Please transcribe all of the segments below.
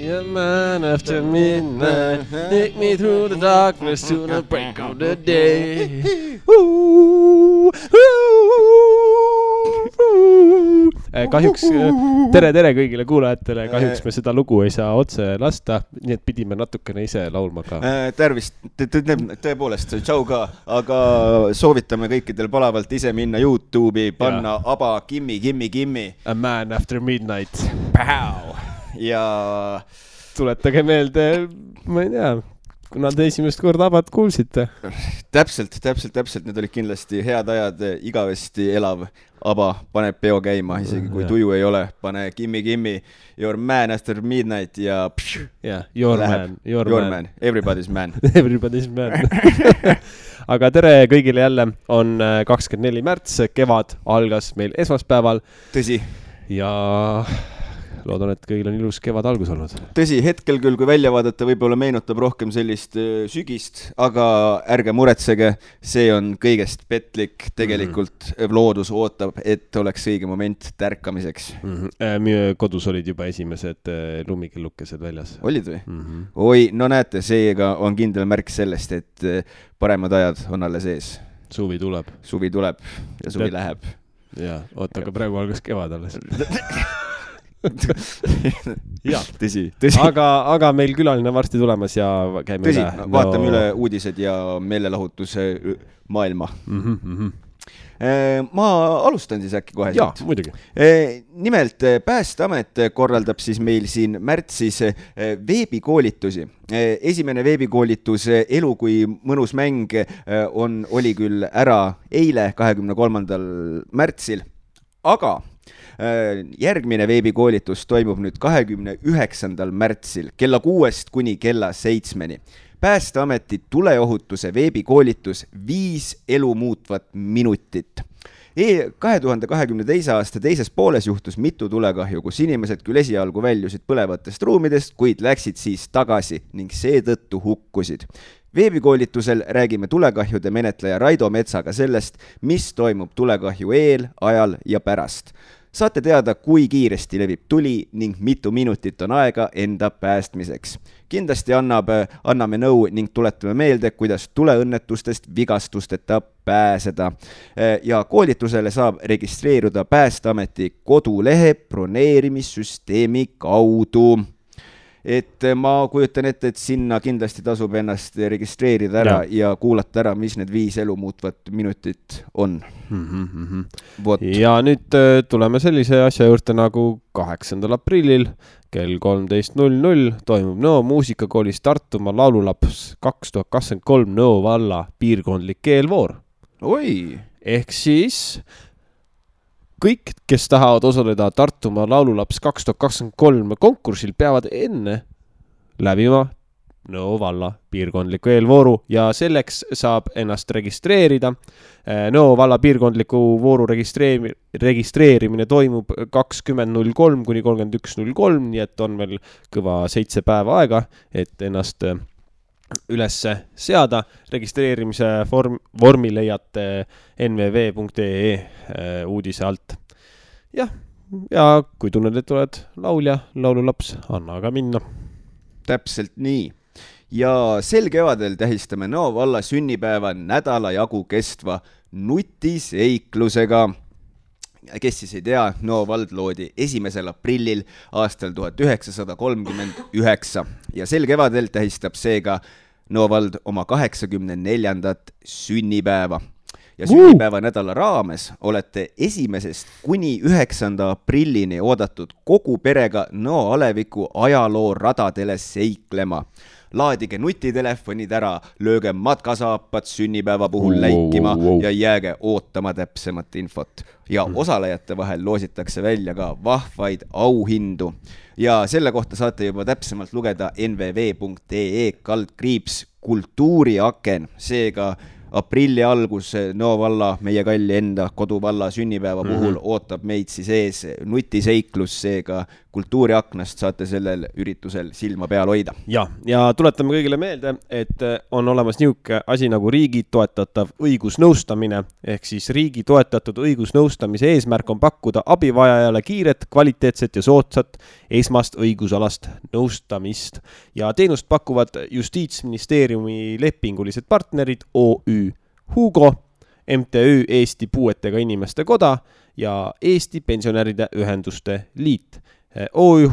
a man after midnight. Take me through the darkness to the break of the day. Kahjuks tere kõigile kuulajatele. Kahjuks me seda lugu ei saa otse lasta, nii et pidime natukene ise laulma ka. Tervist, tõepoolest, tšau ka, aga soovitame kõikidel palavalt ise minna YouTube'i, panna aba Kimmi. A man after midnight. Pow! Ja tuletage meelde, ma ei tea, kuna te esimest korda abad kuulsite. Täpselt, need olid kindlasti head ajad, igavesti elav aba paneb peo käima, isegi kui tuju ei ole, pane Kimmi, your man after midnight ja your man, everybody's man. Everybody's man. Aga tere kõigile jälle, on 24. märts, kevad algas meil esmaspäeval. Tõsi. Ja loodan, et kõigil on ilus kevad algus olnud. Tõsi, hetkel küll, kui välja vaadata, võib-olla meenutab rohkem sellist sügist, aga ärge muretsege, see on kõigest petlik. Tegelikult loodus ootab, et oleks õige moment tärkamiseks. Meie kodus olid juba esimesed lumikellukesed väljas. Olid või? Oi, no näete, seega on kindel märk sellest, et paremad ajad on alles ees. Suvi tuleb ja suvi läheb. Ja, oota, aga praegu algas kevad alles. Tõsi. Aga meil külaline varsti tulemas ja käime üle. Vaatame üle uudised ja meelelahutuse maailma. Ma alustan siis äkki kohe. Jaa, muidugi. Nimelt Päästeamet korraldab siis meil siin märtsis veebikoolitusi. Esimene veebikoolitus Elu kui mõnus mäng oli küll ära eile 23. märtsil, aga järgmine veebikoolitus toimub nüüd 29. märtsil kella 6 kuni kella 7. Päästeameti tuleohutuse veebikoolitus 5 elu muutvat minutit. 2022. aasta teises pooles juhtus mitu tulekahju, kus inimesed küll esialgu väljusid põlevatest ruumidest, kuid läksid siis tagasi ning seetõttu hukkusid. Veebikoolitusel räägime tulekahjude menetleja Raido Metsaga sellest, mis toimub tulekahju eel, ajal ja pärast. Saate teada, kui kiiresti levib tuli ning mitu minutit on aega enda päästmiseks. Kindlasti anname nõu ning tuletame meelde, kuidas tuleõnnetustest vigastusteta pääseda. Ja koolitusele saab registreeruda Päästeameti kodulehe broneerimissüsteemi kaudu. Et ma kujutan ette, et sinna kindlasti tasub ennast registreerida ära ja kuulata ära, mis need 5 elu muutvat minutit on. Ja nüüd tuleme sellise asja juurde nagu 8. aprillil kell 13.00 toimub Nõo muusikakoolis Tartumaa laululaps 2023 Nõo valla piirkondlik keelvoor. Oi! Ehk siis kõik, kes tahavad osaleda Tartumaa laululaps 2023 konkursil, peavad enne läbima Nõo valla piirkondliku eelvooru ja selleks saab ennast registreerida. Nõo valla piirkondliku vooru registreerimine toimub 20.03 kuni 31.03, nii et on veel kõva 7 päeva aega, et ennast üles seada. Registreerimise vormi leiate nvv.ee uudise alt. Ja kui tunned, et oled laulja, laululaps, anna aga minna. Täpselt nii. Ja sel kevadel tähistame Nõo valla sünnipäeva nädala jagu kestva nutiseiklusega. Kes siis ei tea, Nõo vald loodi 1. aprillil aastal 1939 ja sel kevadel tähistab seega Nõo vald oma 84. sünnipäeva. Ja sünnipäeva nädala raames olete 1. kuni 9. aprillini oodatud kogu perega Nõo aleviku ajaloo radadele seiklema. Laadige nutitelefonid ära, lööge matkasaapad sünnipäeva puhul läikima ja jääge ootama täpsemat infot. Ja osalejate vahel loositakse välja ka vahvaid auhindu. Ja selle kohta saate juba täpsemalt lugeda nvv.ee/kultuuriaken. Seega aprilli algus Nõo valla, meie kalli enda koduvalla sünnipäeva puhul ootab meid siis ees nutiseiklus, seega kultuuriaknast saate sellel üritusel silma peal hoida. Ja tuletame kõigile meelde, et on olemas niisugune asi nagu riigi toetatav õigusnõustamine, ehk siis riigi toetatud õigusnõustamise eesmärk on pakkuda abivajajale kiiret, kvaliteetset ja soodsat esmast õigusalast nõustamist. Ja teenust pakuvad Justiitsministeeriumi lepingulised partnerid OÜ Hugo, MTÜ Eesti Puuetega Inimeste Koda ja Eesti Pensionäride Ühenduste Liit. OÜ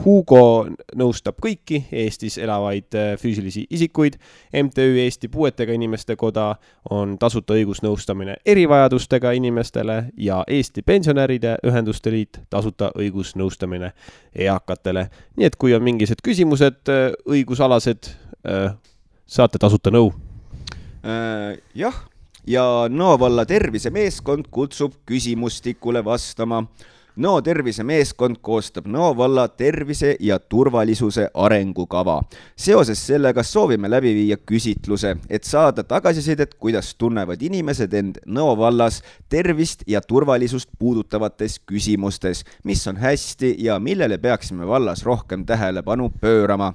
Hugo nõustab kõiki Eestis elavaid füüsilisi isikuid. MTÜ Eesti Puuetega Inimeste Koda on tasuta õigusnõustamine erivajadustega inimestele ja Eesti Pensionäride Ühenduste Liit tasuta õigusnõustamine eakatele. Nii et kui on mingised küsimused õigusalased, saate tasuta nõu. Jah. Ja Nõo valla tervisemeeskond kutsub küsimustikule vastama. Nõo tervisemeeskond koostab Nõo valla tervise ja turvalisuse arengukava. Seoses sellega soovime läbi viia küsitluse, et saada tagasisidet, kuidas tunnevad inimesed end Nõo vallas tervist ja turvalisust puudutavates küsimustes, mis on hästi ja millele peaksime vallas rohkem tähelepanu pöörama.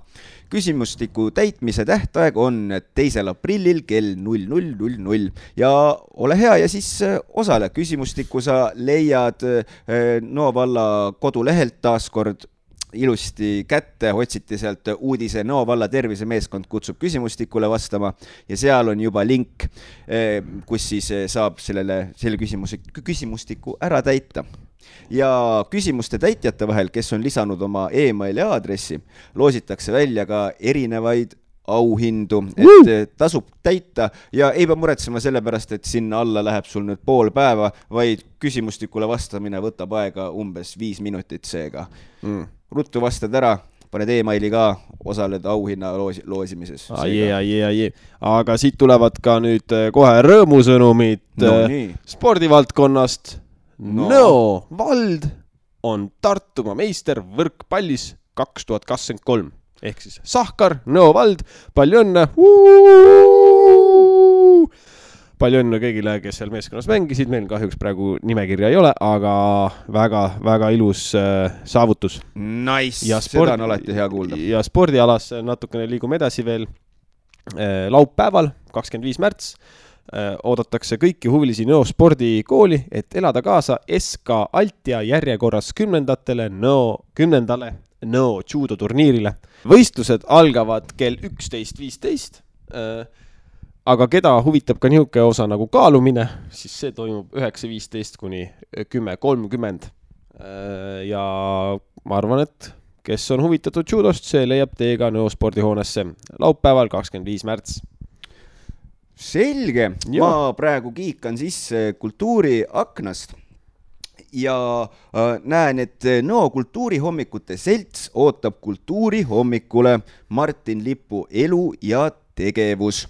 Küsimustiku täitmise tähtaeg on 2. aprillil kell 00:00 ja ole hea ja siis osale. Küsimustiku sa leiad Nõo valla kodulehelt taaskord ilusti kätte, otsiti sealt uudise Nõo valla tervisemeeskond kutsub küsimustikule vastama ja seal on juba link, kus siis saab selle küsimustiku ära täita. Ja küsimuste täitjate vahel, kes on lisanud oma e-maili aadressi, loositakse välja ka erinevaid auhindu, et tasub täita ja ei pea muretsema selle pärast, et sinna alla läheb sul nüüd pool päeva, vaid küsimustikule vastamine võtab aega umbes 5 minutit seega. Ruttu vastad ära, paned e-maili ka, osaled auhinna loosimises. Aga siit tulevad ka nüüd kohe rõõmusõnumid spordivaldkonnast. Nõo vald on Tartumaa meister võrkpallis 2023. Ehk siis Sahkar, Nõo vald, palju õnne! Palju õnne kõigile, kes seal meeskonnas mängisid. Meil kahjuks praegu nimekirja ei ole, aga väga ilus saavutus. Nice, seda on alati hea kuulda. Ja spordialas natukene liigume edasi veel. Laupäeval, 25. märts, oodatakse kõiki huvilisi Nõo spordikooli, et elada kaasa SK Altia järjekorras 10. Nõo judo turniirile. Võistlused algavad kell 11.15, aga keda huvitab ka nihuke osa nagu kaalumine, siis see toimub 9.15 kuni 10.30. Ja ma arvan, et kes on huvitatud judost, see leiab teega Nõo spordihoonesse laupäeval 25. märts. Selge, ma praegu kiikan sisse kultuuriaknast ja näen, et Nõo kultuurihommikute selts ootab kultuurihommikule Martin Lipu elu ja tegevus.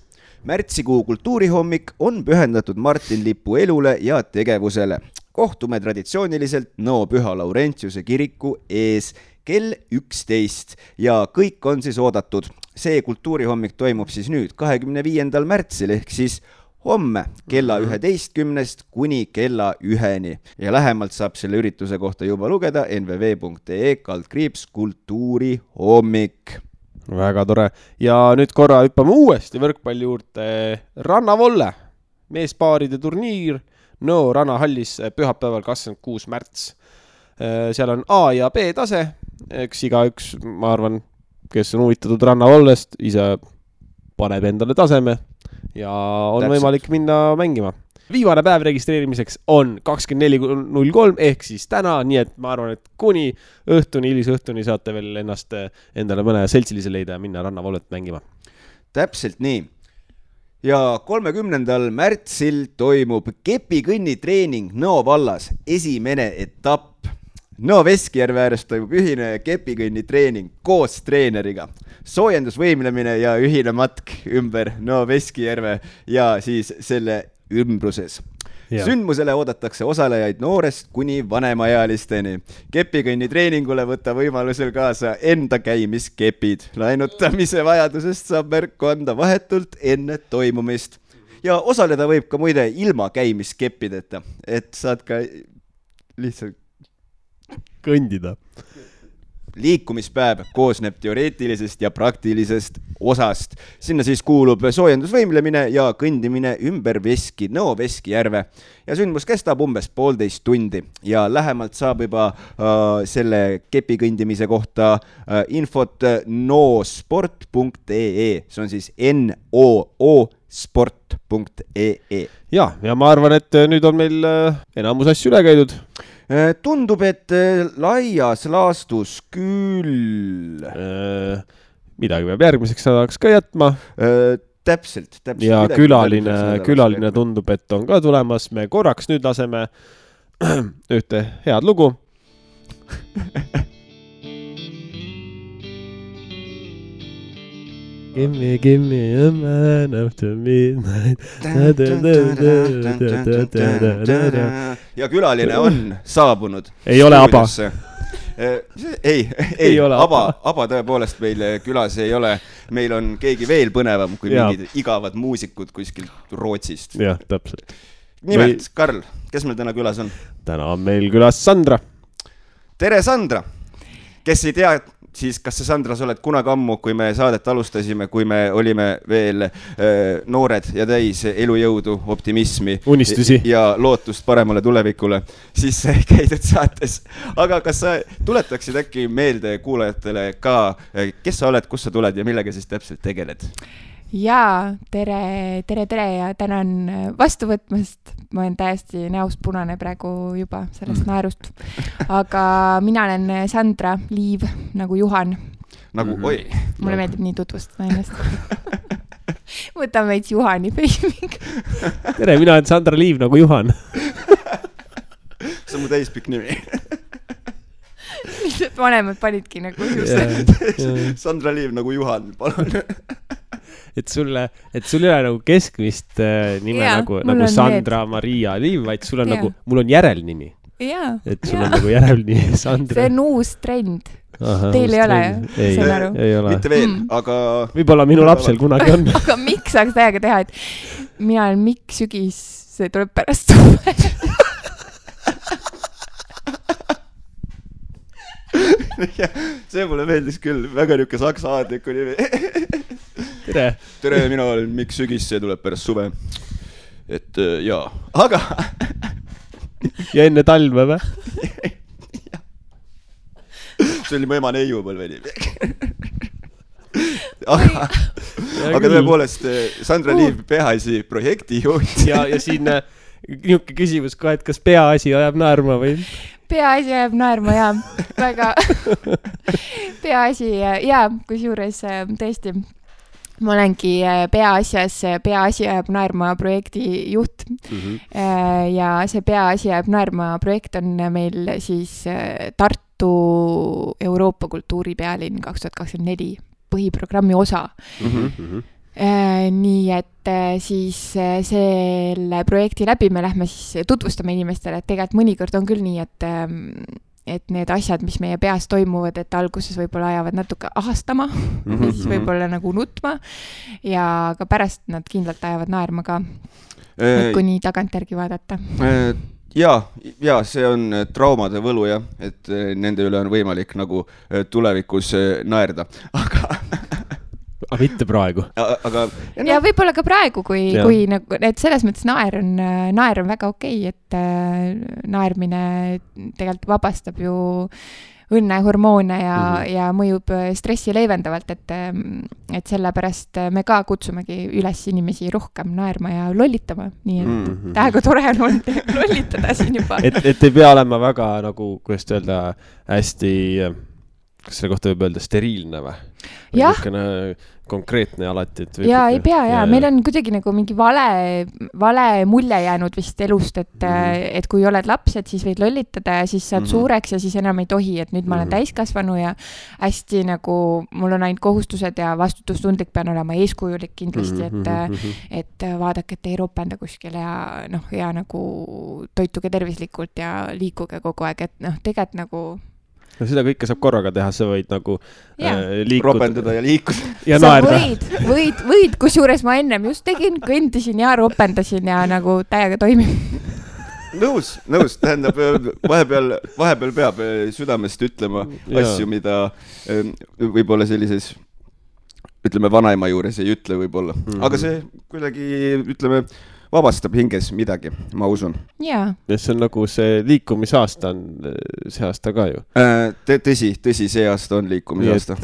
Märtsikuu kultuurihommik on pühendatud Martin Lipu elule ja tegevusele. Kohtume traditsiooniliselt Nõo Püha Laurentiuse kiriku ees kell 11 ja kõik on siis oodatud. See kultuurihommik toimub siis nüüd 25. märtsil ehk siis homme kella 11 kuni kella 1 ja lähemalt saab selle ürituse kohta juba lugeda nvv.ee/kultuurihommik. Väga tore. Ja nüüd korra hüppame uuesti võrkpalli juurde. Rannavolle meespaaride turniir Nõo rannahallis pühapäeval 26. märts. Seal on A ja B tase, eks igaüks, ma arvan, kes on huvitatud rannavollest, ise paneb endale taseme ja on võimalik minna mängima. Viimane päev registreerimiseks on 24.03 ehk siis täna, nii et ma arvan, et kuni õhtuni, hilisõhtuni saate veel ennast endale mõne seltsilise leida ja minna rannavollet mängima. Täpselt nii. Ja 30. märtsil toimub kepikõnnitreening Nõo vallas, esimene etapp. Nõo Veskijärve ääres toimub ühine kepikõnnitreening koos treeneriga. Soojendusvõimlemine ja ühine matk ümber Nõo Veskijärve ja siis selle ümbruses. Ja. Sündmusele oodatakse osalejaid noorest kuni vanemaealisteni. Kepikõnnitreeningule võtta võimalusel kaasa enda käimiskepid. Laenutamise vajadusest saab märku anda vahetult enne toimumist. Ja osaleda võib ka muide ilma käimiskeppideta, et saad ka lihtsalt kõndida. liikumispäev koosneb teoreetilisest ja praktilisest osast. Sinna siis kuulub soojendusvõimlemine ja kõndimine ümber Nõo Veskijärve ja sündmus kestab umbes 1,5 tundi ja lähemalt saab juba selle kepikõndimise kohta infot noosport.ee, see on siis noosport.ee. Ja ma arvan, et nüüd on meil enamus asju üle käidud. Tundub, et laias laastus küll. Midagi peab järgmiseks nädalaks ka jätma. Täpselt. Ja külaline tundub, et on ka tulemas. Me korraks nüüd laseme ühte head lugu. Give me a man after midnight. Ja külaline on saabunud. Ei ole Aba. Ei ole Aba tõepoolest meil külas ei ole. Meil on keegi veel põnevam kui mingid igavad muusikud kuskilt Rootsist. Jah, täpselt. Nimelt, Karl, kes meil täna külas on? Täna on meil külas Sandra. Tere, Sandra! Kes ei tea, siis kas sa, Sandra, sa oled kunagi ammu, kui me saadet alustasime, kui me olime veel noored ja täis elujõudu, optimismi unistusi ja lootust paremale tulevikule, siis käidud saates. Aga kas sa tuletaksid äkki meelde kuulajatele ka, kes sa oled, kus sa tuled ja millega siis täpselt tegeled? Jaa, tere ja tänan vastu võtmast. Ma olen täiesti näost punane praegu juba sellest naerust. Aga mina olen Sandra Liiv, nagu Juhan. Nagu, oi. Mulle meeldib nii tutvustada ennast. Võtame veits Juhani peiming. Tere, mina olen Sandra Liiv, nagu Juhan. See on mu täispikk nimi. Lihtsalt vanemad panidki nagu Sandra Liiv, nagu Juhan, palun. Et sul ei ole nagu keskmist nime nagu Sandra Maria Liiv, vaid sul on nagu, mul on järelnimi. Et sul on nagu järelnimi Sandra. See on uus trend. Teil ei ole, saan aru? Ei ole. Mitte veel, aga... Võib-olla minu lapsel kunagi on. Aga miks saaks täiega teha, et mina olen Mikk Sügis, see tuleb pärast suve. See mulle meeldis küll, väga niuke saksa aadliku nimi. Tere, mina olen Mikk Sügis, see tuleb pärast suve. Et jaa, aga... Ja enne talve või? See oli mu ema neiupõlve nimi. Aga tõepoolest, Sandra Liiv, peaasi projektijuht. Ja siin niuke küsimus ka, et kas peaasi ajab naerma või? Peaasi ajab naerma, jaa. Väga peaasi, jaa, kusjuures tõesti, ma olengi peaasi ajab naerma projekti juht. Ja see peaasi ajab naerma projekt on meil siis Tartu Euroopa kultuuripealinn 2024 põhiprogrammi osa. Nii et siis selle projekti läbi me lähme siis tutvustame inimestele, et tegelikult mõnikord on küll nii, et need asjad, mis meie peas toimuvad, et alguses võib-olla ajavad natuke ahastama ja siis võib-olla nagu nutma ja ka pärast nad kindlalt ajavad naerma ka, kui nii tagantjärgi vaadata. Ja see on traumade võlu, jah, et nende üle on võimalik nagu tulevikus naerda, aga mitte praegu. Ja võib-olla ka praegu, kui nagu, et selles mõttes naer on väga okei, et naermine tegelikult vabastab ju õnnehormoone ja mõjub stressi leevendavalt, et sellepärast me ka kutsumegi üles inimesi rohkem naerma ja lollitama. Nii et tähega tore on olnud lollitada siin juba. Et ei pea olema väga nagu, kuidas öelda, hästi, kas selle kohta võib öelda steriilne või? Jah. Konkreetne alati. Ja ei pea, ja meil on kuidagi nagu mingi vale mulje jäänud vist elust, et kui oled laps, et siis võid lollitada ja siis saad suureks ja siis enam ei tohi, et nüüd ma olen täiskasvanu ja hästi nagu mul on ainult kohustused ja vastutustundlik pean olema eeskujulik kindlasti, et vaadake, et ei ropenda kuskil ja nagu toituge tervislikult ja liikuge kogu aeg, et tegelikult nagu No seda kõike saab korraga teha, sa võid nagu liikuda. Ropendada ja liikuda. Ja sa võid, kusjuures ma ennem just tegin, kõndisin ja ropendasin ja nagu täiega toimib. nõus, tähendab vahepeal peab südamest ütlema asju, mida võib-olla sellises ütleme vanaema juures ei ütle võib-olla, aga see kuidagi ütleme vabastab hinges midagi, ma usun. Jaa. Ja see on nagu see liikumisaasta on see aasta ka ju. Tõsi, see aasta on liikumisaasta.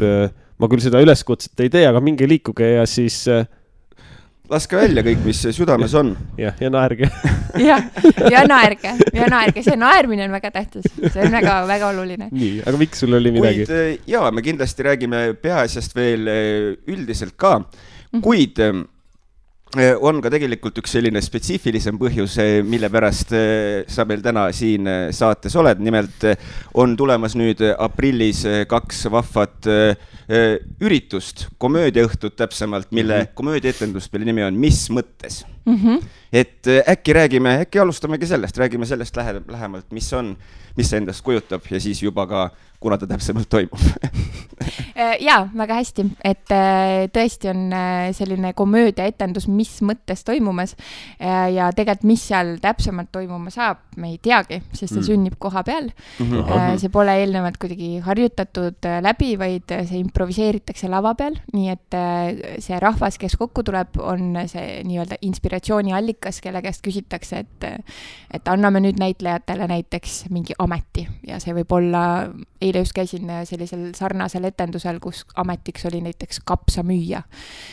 Ma küll seda üleskutset ei tee, aga minge liikuge ja siis laske välja kõik, mis südames on. Ja naerge. ja naerge. See naermine on väga tähtis. See on väga, väga oluline. Nii, aga miks sul oli midagi? Jaa, me kindlasti räägime peaasjast veel üldiselt ka, kuid on ka tegelikult üks selline spetsiifilisem põhjus, mille pärast sa meil täna siin saates oled. Nimelt on tulemas nüüd aprillis 2 vahvat üritust, komöödiaõhtut täpsemalt, mille komöödiaetendus, mille nimi on Mis mõttes? Et äkki alustamegi sellest, räägime sellest lähemalt, mis see endast kujutab ja siis juba ka, kuna ta täpsemalt toimub. Jaa, väga hästi, et tõesti on selline komöödiaetendus, mis mõttes toimumas ja tegelikult, mis seal täpsemalt toimuma saab, me ei teagi, sest see sünnib koha peal. See pole eelnevalt kuidagi harjutatud läbi, vaid see improviseeritakse lava peal, nii et see rahvas, kes kokku tuleb, on see nii-öelda inspiratsiooni allikas, kelle käest küsitakse, et anname nüüd näitlejatele näiteks mingi ameti ja see võib olla, eile just käisin sellisel sarnasel etendusel, kus ametiks oli näiteks kapsamüüja.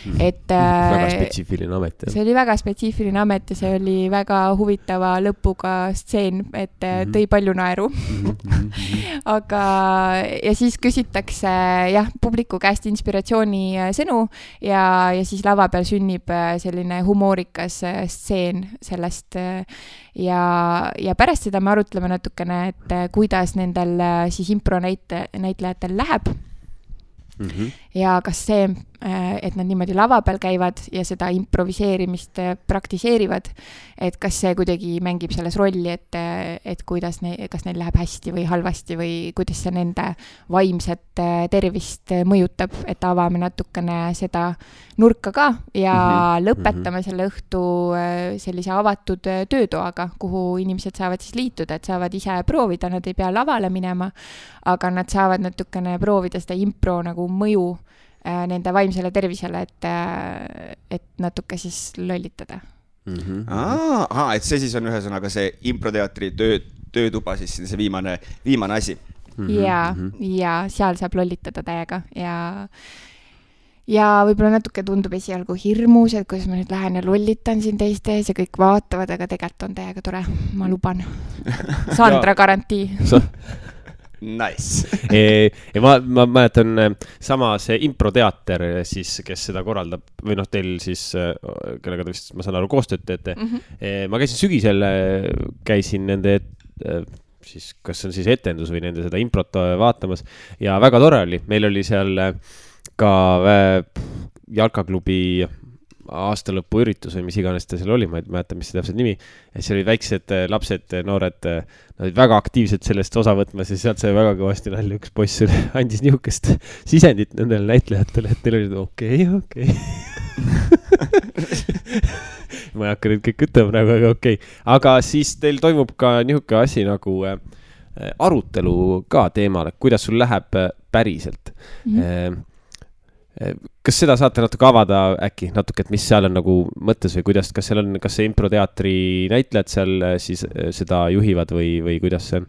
Väga spetsiifiline amet. See oli väga spetsiifiline amet ja see oli väga huvitava lõpuga stseen, et tõi palju naeru. Aga ja siis küsitakse publiku käest inspiratsiooni sõnu ja siis lava peal sünnib selline humoorikas stseen sellest ja pärast seda me arutleme natukene, et kuidas nendel siis impronäitlejatel läheb ja kas see, et nad niimoodi lava peal käivad ja seda improviseerimist praktiseerivad, et kas see kuidagi mängib selles rolli, et kuidas kas neil läheb hästi või halvasti või kuidas see nende vaimset tervist mõjutab, et avame natukene seda nurka ka ja lõpetame selle õhtu sellise avatud töötoaga, kuhu inimesed saavad siis liituda, et saavad ise proovida, nad ei pea lavale minema, aga nad saavad natukene proovida seda impro nagu mõju nende vaimsele tervisele, et natuke siis lollitada. Et see siis on ühesõnaga see improteatri töötuba, siis see viimane asi. Ja seal saab lollitada täiega ja võib-olla natuke tundub esialgu hirmus, et kuidas ma nüüd lähen ja lollitan siin teiste ees ja kõik vaatavad, aga tegelikult on täiega tore, ma luban. Sandra garantii. Nice. Ma mäletan sama see improteater siis, kes seda korraldab või teil siis, kellega te vist, ma saan aru, koostööd teete. Ma käisin sügisel, käisin nende siis, kas on siis etendus või nende seda improt vaatamas ja väga tore oli. Meil oli seal ka jalkaklubi aastalõpu üritus või mis iganes ta seal oli, ma ei mäleta, mis see täpselt nimi. Ja see oli väiksed lapsed, noored, nad olid väga aktiivselt sellest osa võtmas ja sealt sai väga kõvasti nalja. Üks poiss andis nihukest sisendit nendele näitlejatele, et neil oli okei. Ma ei hakka nüüd kõik ütlema praegu, aga okei. Aga siis teil toimub ka nihuke asi nagu arutelu ka teemal, kuidas sul läheb päriselt. Kas seda saate natuke avada äkki natuke, et mis seal on nagu mõttes või kuidas, kas see improteatri näitlejad seal siis seda juhivad või kuidas see on?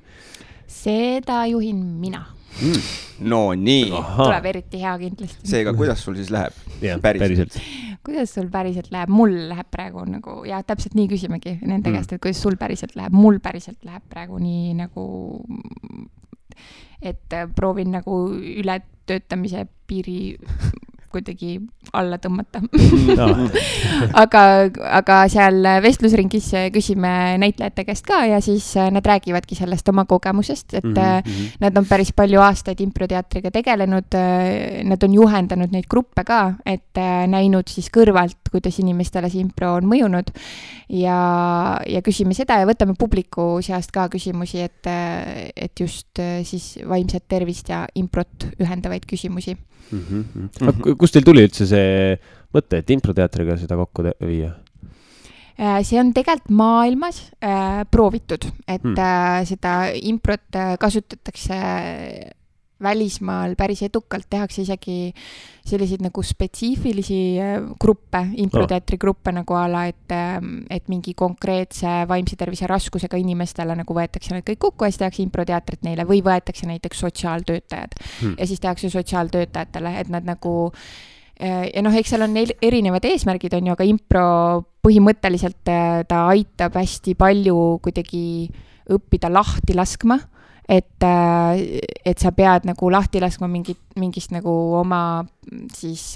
Seda juhin mina. No nii. Tuleb eriti hea kindlasti. Seega, kuidas sul siis läheb? Päriselt. Kuidas sul päriselt läheb? Mul läheb praegu nagu, ja täpselt nii küsimegi nende käest, et kuidas sul päriselt läheb. Mul päriselt läheb praegu nii nagu, et proovin nagu ületöötamise piiri kuidagi alla tõmmata. aga seal vestlusringis küsime näitlejate käest ka ja siis nad räägivadki sellest oma kogemusest, et nad on päris palju aastaid improteatriga tegelenud, nad on juhendanud neid gruppe ka, et näinud siis kõrvalt, kuidas inimestele see impro on mõjunud ja küsime seda ja võtame publiku seast ka küsimusi, et just siis vaimset tervist ja improt ühendavaid küsimusi. Kus teil tuli üldse see mõte, et improteatriga seda kokku viia? See on tegelikult maailmas proovitud, et seda improt kasutatakse välismaal päris edukalt, tehakse isegi selliseid nagu spetsiifilisi gruppe, improteatri gruppe nagu ala, et mingi konkreetse vaimse tervise raskusega inimestele nagu võetakse need kõik kokku ja siis tehakse improteatrit neile või võetakse näiteks sotsiaaltöötajad ja siis tehakse sotsiaaltöötajatele, et nad nagu ja eks seal on erinevad eesmärgid on ju, aga impro põhimõtteliselt ta aitab hästi palju kuidagi õppida lahti laskma, et sa pead nagu lahti laskma mingist nagu oma siis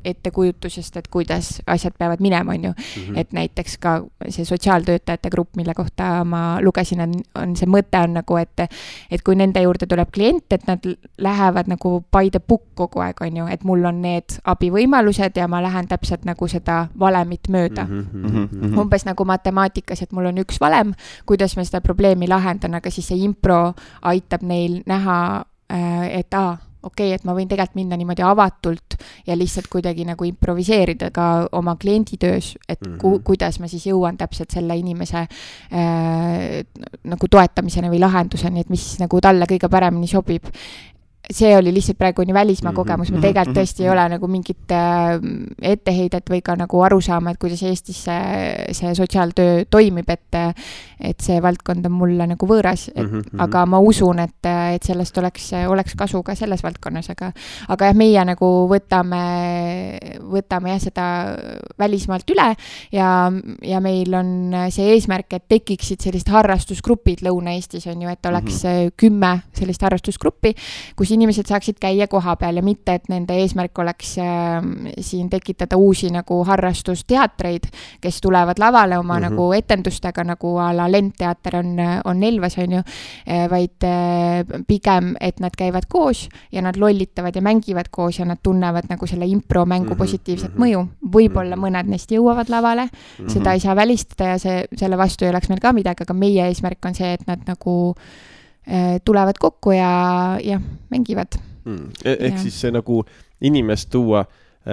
ettekujutusest, et kuidas asjad peavad minema, on ju. Et näiteks ka see sotsiaaltöötajate grupp, mille kohta ma lugesin, on see mõte on nagu, et kui nende juurde tuleb klient, et nad lähevad nagu by the book kogu aeg, on ju, et mul on need abivõimalused ja ma lähen täpselt nagu seda valemit mööda. Umbes nagu matemaatikas, et mul on üks valem, kuidas ma seda probleemi lahendan, aga siis see impro aitab neil näha, et okei, et ma võin tegelikult minna niimoodi avatult ja lihtsalt kuidagi nagu improviseerida ka oma klienditöös, et kuidas ma siis jõuan täpselt selle inimese nagu toetamiseni või lahenduseni, et mis nagu talle kõige paremini sobib. See oli lihtsalt praegu nii välismaa kogemus, ma tegelikult tõesti ei ole nagu mingit etteheidet või ka nagu aru saama, et kuidas Eestis see sotsiaaltöö toimib, et see valdkond on mulle nagu võõras, aga ma usun, et sellest oleks kasu ka selles valdkonnas, aga jah, meie nagu võtame jah seda välismaalt üle ja meil on see eesmärk, et tekiksid sellised harrastusgrupid Lõuna-Eestis on ju, et oleks 10 sellist harrastusgruppi, kus inimesed saaksid käia koha peal ja mitte, et nende eesmärk oleks siin tekitada uusi nagu harrastusteatreid, kes tulevad lavale oma nagu etendustega, nagu a la Lendteater on Elvas, on ju, vaid pigem, et nad käivad koos ja nad lollitavad ja mängivad koos ja nad tunnevad nagu selle impro-mängu positiivset mõju. Võib-olla mõned neist jõuavad lavale, seda ei saa välistada ja selle vastu ei oleks meil ka midagi, aga meie eesmärk on see, et nad nagu tulevad kokku ja mängivad. Ehk siis see nagu inimest tuua,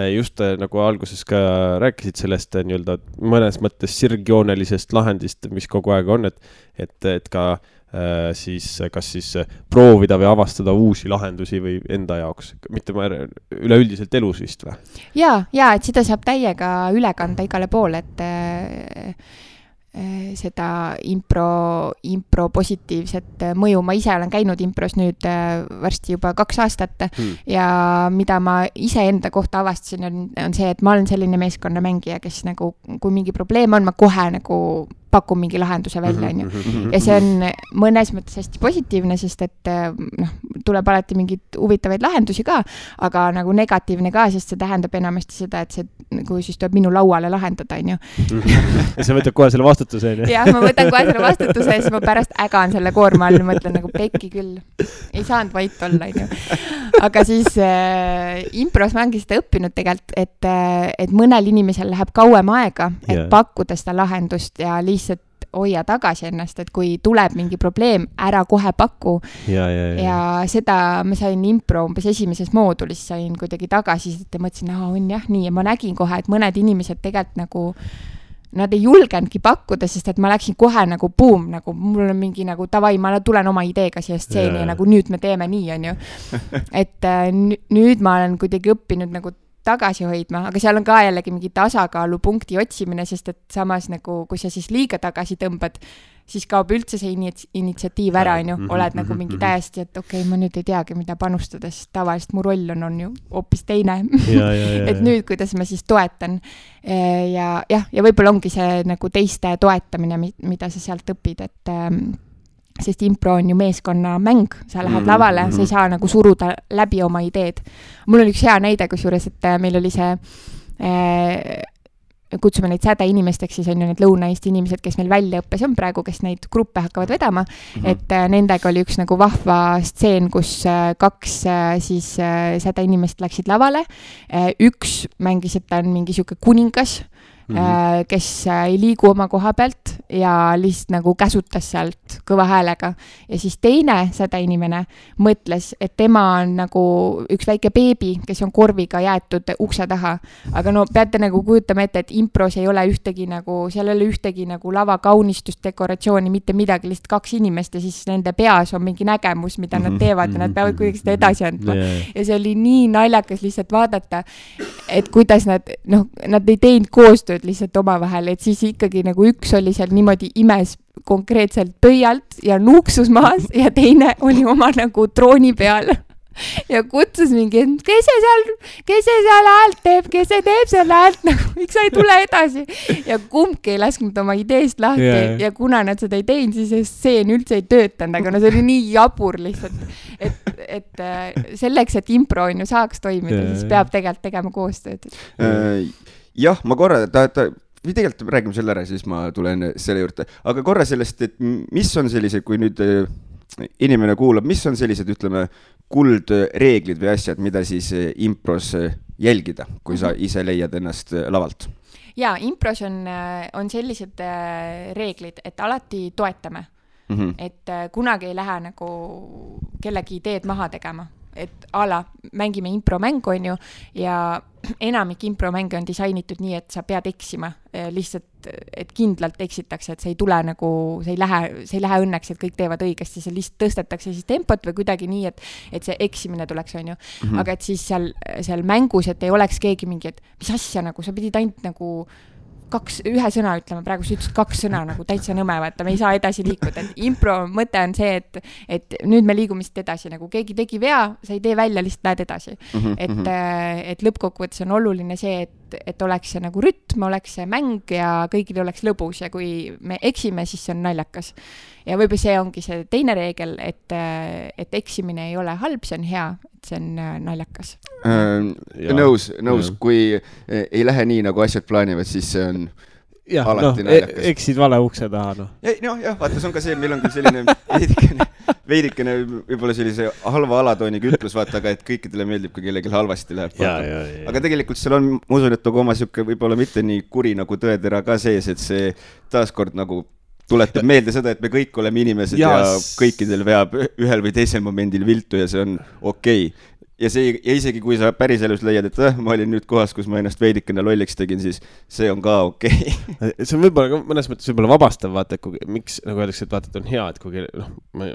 just nagu alguses ka rääkisid sellest nii-öelda mõnes mõttes sirgjoonelisest lahendist, mis kogu aeg on, et ka siis kas siis proovida või avastada uusi lahendusi või enda jaoks, mitte üleüldiselt elus vist või? Ja, et seda saab täiega üle kanda igale poole, et seda impro positiivset mõju. Ma ise olen käinud impros nüüd varsti juba 2 aastat ja mida ma ise enda kohta avastasin on see, et ma olen selline meeskonnamängija, kes nagu, kui mingi probleem on, ma kohe nagu pakun mingi lahenduse välja, on ju. Ja see on mõnes mõttes hästi positiivne, sest et tuleb alati mingid huvitavaid lahendusi ka, aga nagu negatiivne ka, sest see tähendab enamasti seda, et see nagu siis tuleb minu lauale lahendada, on ju. Ja sa võtad kohe selle vastutuse, on ju? Jah, ma võtan kohe selle vastutuse ja siis ma pärast ägan selle koorma all, mõtlen nagu pekki küll. Ei saanud vait olla, on ju. Aga siis impros ma ongi seda õppinud tegelikult, et mõnel inimesel läheb kauem aega, et pakkuda seda lahendust ja lihtsalt hoia tagasi ennast, et kui tuleb mingi probleem, ära kohe paku. Ja seda ma sain impro umbes esimeses moodulis, sain kuidagi tagasi, et mõtlesin, on jah nii, ja ma nägin kohe, et mõned inimesed tegelikult nagu nad ei julgenudki pakkuda, sest et ma läksin kohe nagu boom, nagu mul on mingi nagu tavai, ma tulen oma ideega siia stseeni ja nagu nüüd me teeme nii, on ju. Et nüüd ma olen kuidagi õppinud nagu tagasi hoidma, aga seal on ka jällegi mingi tasakaalupunkti otsimine, sest et samas nagu, kui sa siis liiga tagasi tõmbad, siis kaob üldse see initsiatiiv ära, on ju, oled nagu mingi täiesti, et okei, ma nüüd ei teagi, mida panustada, sest tavaliselt mu roll on ju hoopis teine. Et nüüd, kuidas ma siis toetan ja võib-olla ongi see nagu teiste toetamine, mida sa sealt õpid, et sest impro on ju meeskonnamäng, sa lähed lavale, sa ei saa nagu suruda läbi oma ideed. Mul oli üks hea näide, kusjuures, et meil oli see, kutsume neid sädeinimesteks, siis on ju need Lõuna-Eesti inimesed, kes meil väljaõppes on praegu, kes neid gruppe hakkavad vedama, et nendega oli üks nagu vahva stseen, kus 2 siis sädeinimest läksid lavale, üks mängis, et ta on mingi siuke kuningas, kes ei liigu oma koha pealt ja lihtsalt nagu käsutas sealt kõva häälega. Ja siis teine sädeinimene mõtles, et tema on nagu üks väike beebi, kes on korviga jäetud ukse taha. Aga no peate nagu kujutama ette, et impros ei ole ühtegi nagu, seal ei ole ühtegi nagu lava kaunistust, dekoratsiooni, mitte midagi, lihtsalt 2 inimest ja siis nende peas on mingi nägemus, mida nad teevad ja nad peavad kuidagi seda edasi andma. Ja see oli nii naljakas lihtsalt vaadata, et kuidas nad ei teinud koostööd lihtsalt omavahel, et siis ikkagi nagu üks oli seal niimoodi imes konkreetselt pöialt ja nuuksus maas ja teine oli oma nagu trooni peal ja kutsus mingi, kes see seal häält teeb, kes see teeb seal häält, nagu miks sa ei tule edasi ja kumbki ei lasknud oma ideest lahti ja kuna nad seda ei teinud, siis see stseen üldse ei töötanud, aga no see oli nii jabur lihtsalt, et selleks, et impro on ju saaks toimida, siis peab tegelikult tegema koostööd. Jah, ma korra, või tegelikult räägime selle ära, siis ma tulen selle juurde, aga korra sellest, et mis on sellised, kui nüüd inimene kuulab, mis on sellised, ütleme, kuldreeglid või asjad, mida siis impros jälgida, kui sa ise leiad ennast lavalt? Jaa, impros on sellised reeglid, et alati toetame, et kunagi ei lähe nagu kellegi ideed maha tegema. Et mängime impromängu on ju ja enamik impromänge on disainitud nii, et sa pead eksima lihtsalt, et kindlalt eksitakse, et see ei tule nagu, see ei lähe õnneks, et kõik teevad õigesti, see lihtsalt tõstetakse siis tempot või kuidagi nii, et see eksimine tuleks on ju. Aga et siis seal mängus, et ei oleks keegi mingi, et mis asja nagu, sa pidid ainult nagu ühe sõna ütlema, praegu sa ütlesid 2 sõna nagu täitsa nõme, vaata, me ei saa edasi liikuda, et impro mõte on see, et nüüd me liigume siit edasi, nagu keegi tegi vea, sa ei tee välja, lihtsalt lähed edasi. Et lõppkokkuvõttes on oluline see, et oleks see nagu rütm, oleks see mäng ja kõigil oleks lõbus ja kui me eksime, siis see on naljakas. Ja võib-olla see ongi see teine reegel, et eksimine ei ole halb, see on hea, et see on naljakas. Nõus, kui ei lähe nii, nagu asjad plaanivad, siis see on alati naljakas. Eksid vale ukse taha, noh. Jah, vaata, see on ka see, meil on küll selline veidikene võib-olla sellise halva alatooniga ütlus, vaata, aga et kõikidele meeldib, kui kellelgi halvasti läheb. Aga tegelikult seal on, ma usun, et oma siuke võib-olla mitte nii kuri nagu tõetera ka sees, et see taaskord nagu tuletab meelde seda, et me kõik oleme inimesed ja kõikidel veab ühel või teisel momendil viltu ja see on okei. Ja isegi kui sa päris elus leiad, et ma olin nüüd kohas, kus ma ennast veidikene lolliks tegin, siis see on ka okei. See on võib-olla mõnes mõttes võib-olla vabastav, vaata, miks nagu öeldakse, et vaata, et on hea, et kui ma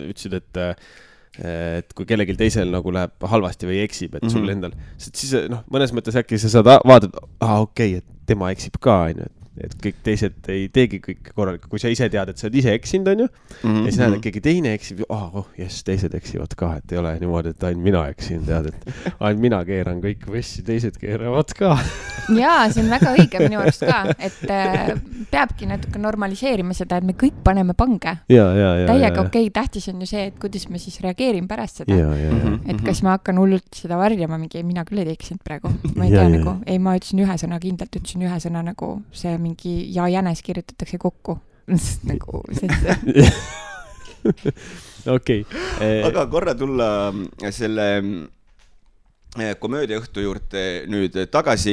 ütlesid, et kui kellelgi teisel nagu läheb halvasti või eksib, et sul endal, siis mõnes mõttes äkki sa saad vaadata, okei, et tema eksib ka, et kõik teised ei teegi kõik korralikult, kui sa ise tead, et sa oled ise eksinud, on ju, ja siis näed, et keegi teine eksib, teised eksivad ka, et ei ole niimoodi, et ainult mina eksin, tead, et ainult mina keeran kõik võssi, teised keeravad ka. Jaa, see on väga õige minu arust ka, et peabki natuke normaliseerima seda, et me kõik paneme pange. Täiega okei, tähtis on ju see, et kuidas me siis reageerime pärast seda. Et kas ma hakkan hullult seda varjama, mingi mina küll ei eksinud praegu. Ma ei tea nagu, ma ütlesin ühe sõna kindlalt, ütlesin ühe sõna nagu see mingi ja jänes kirjutatakse kokku. Nagu Okei. Aga korra tulla selle komöödiaõhtu juurde nüüd tagasi,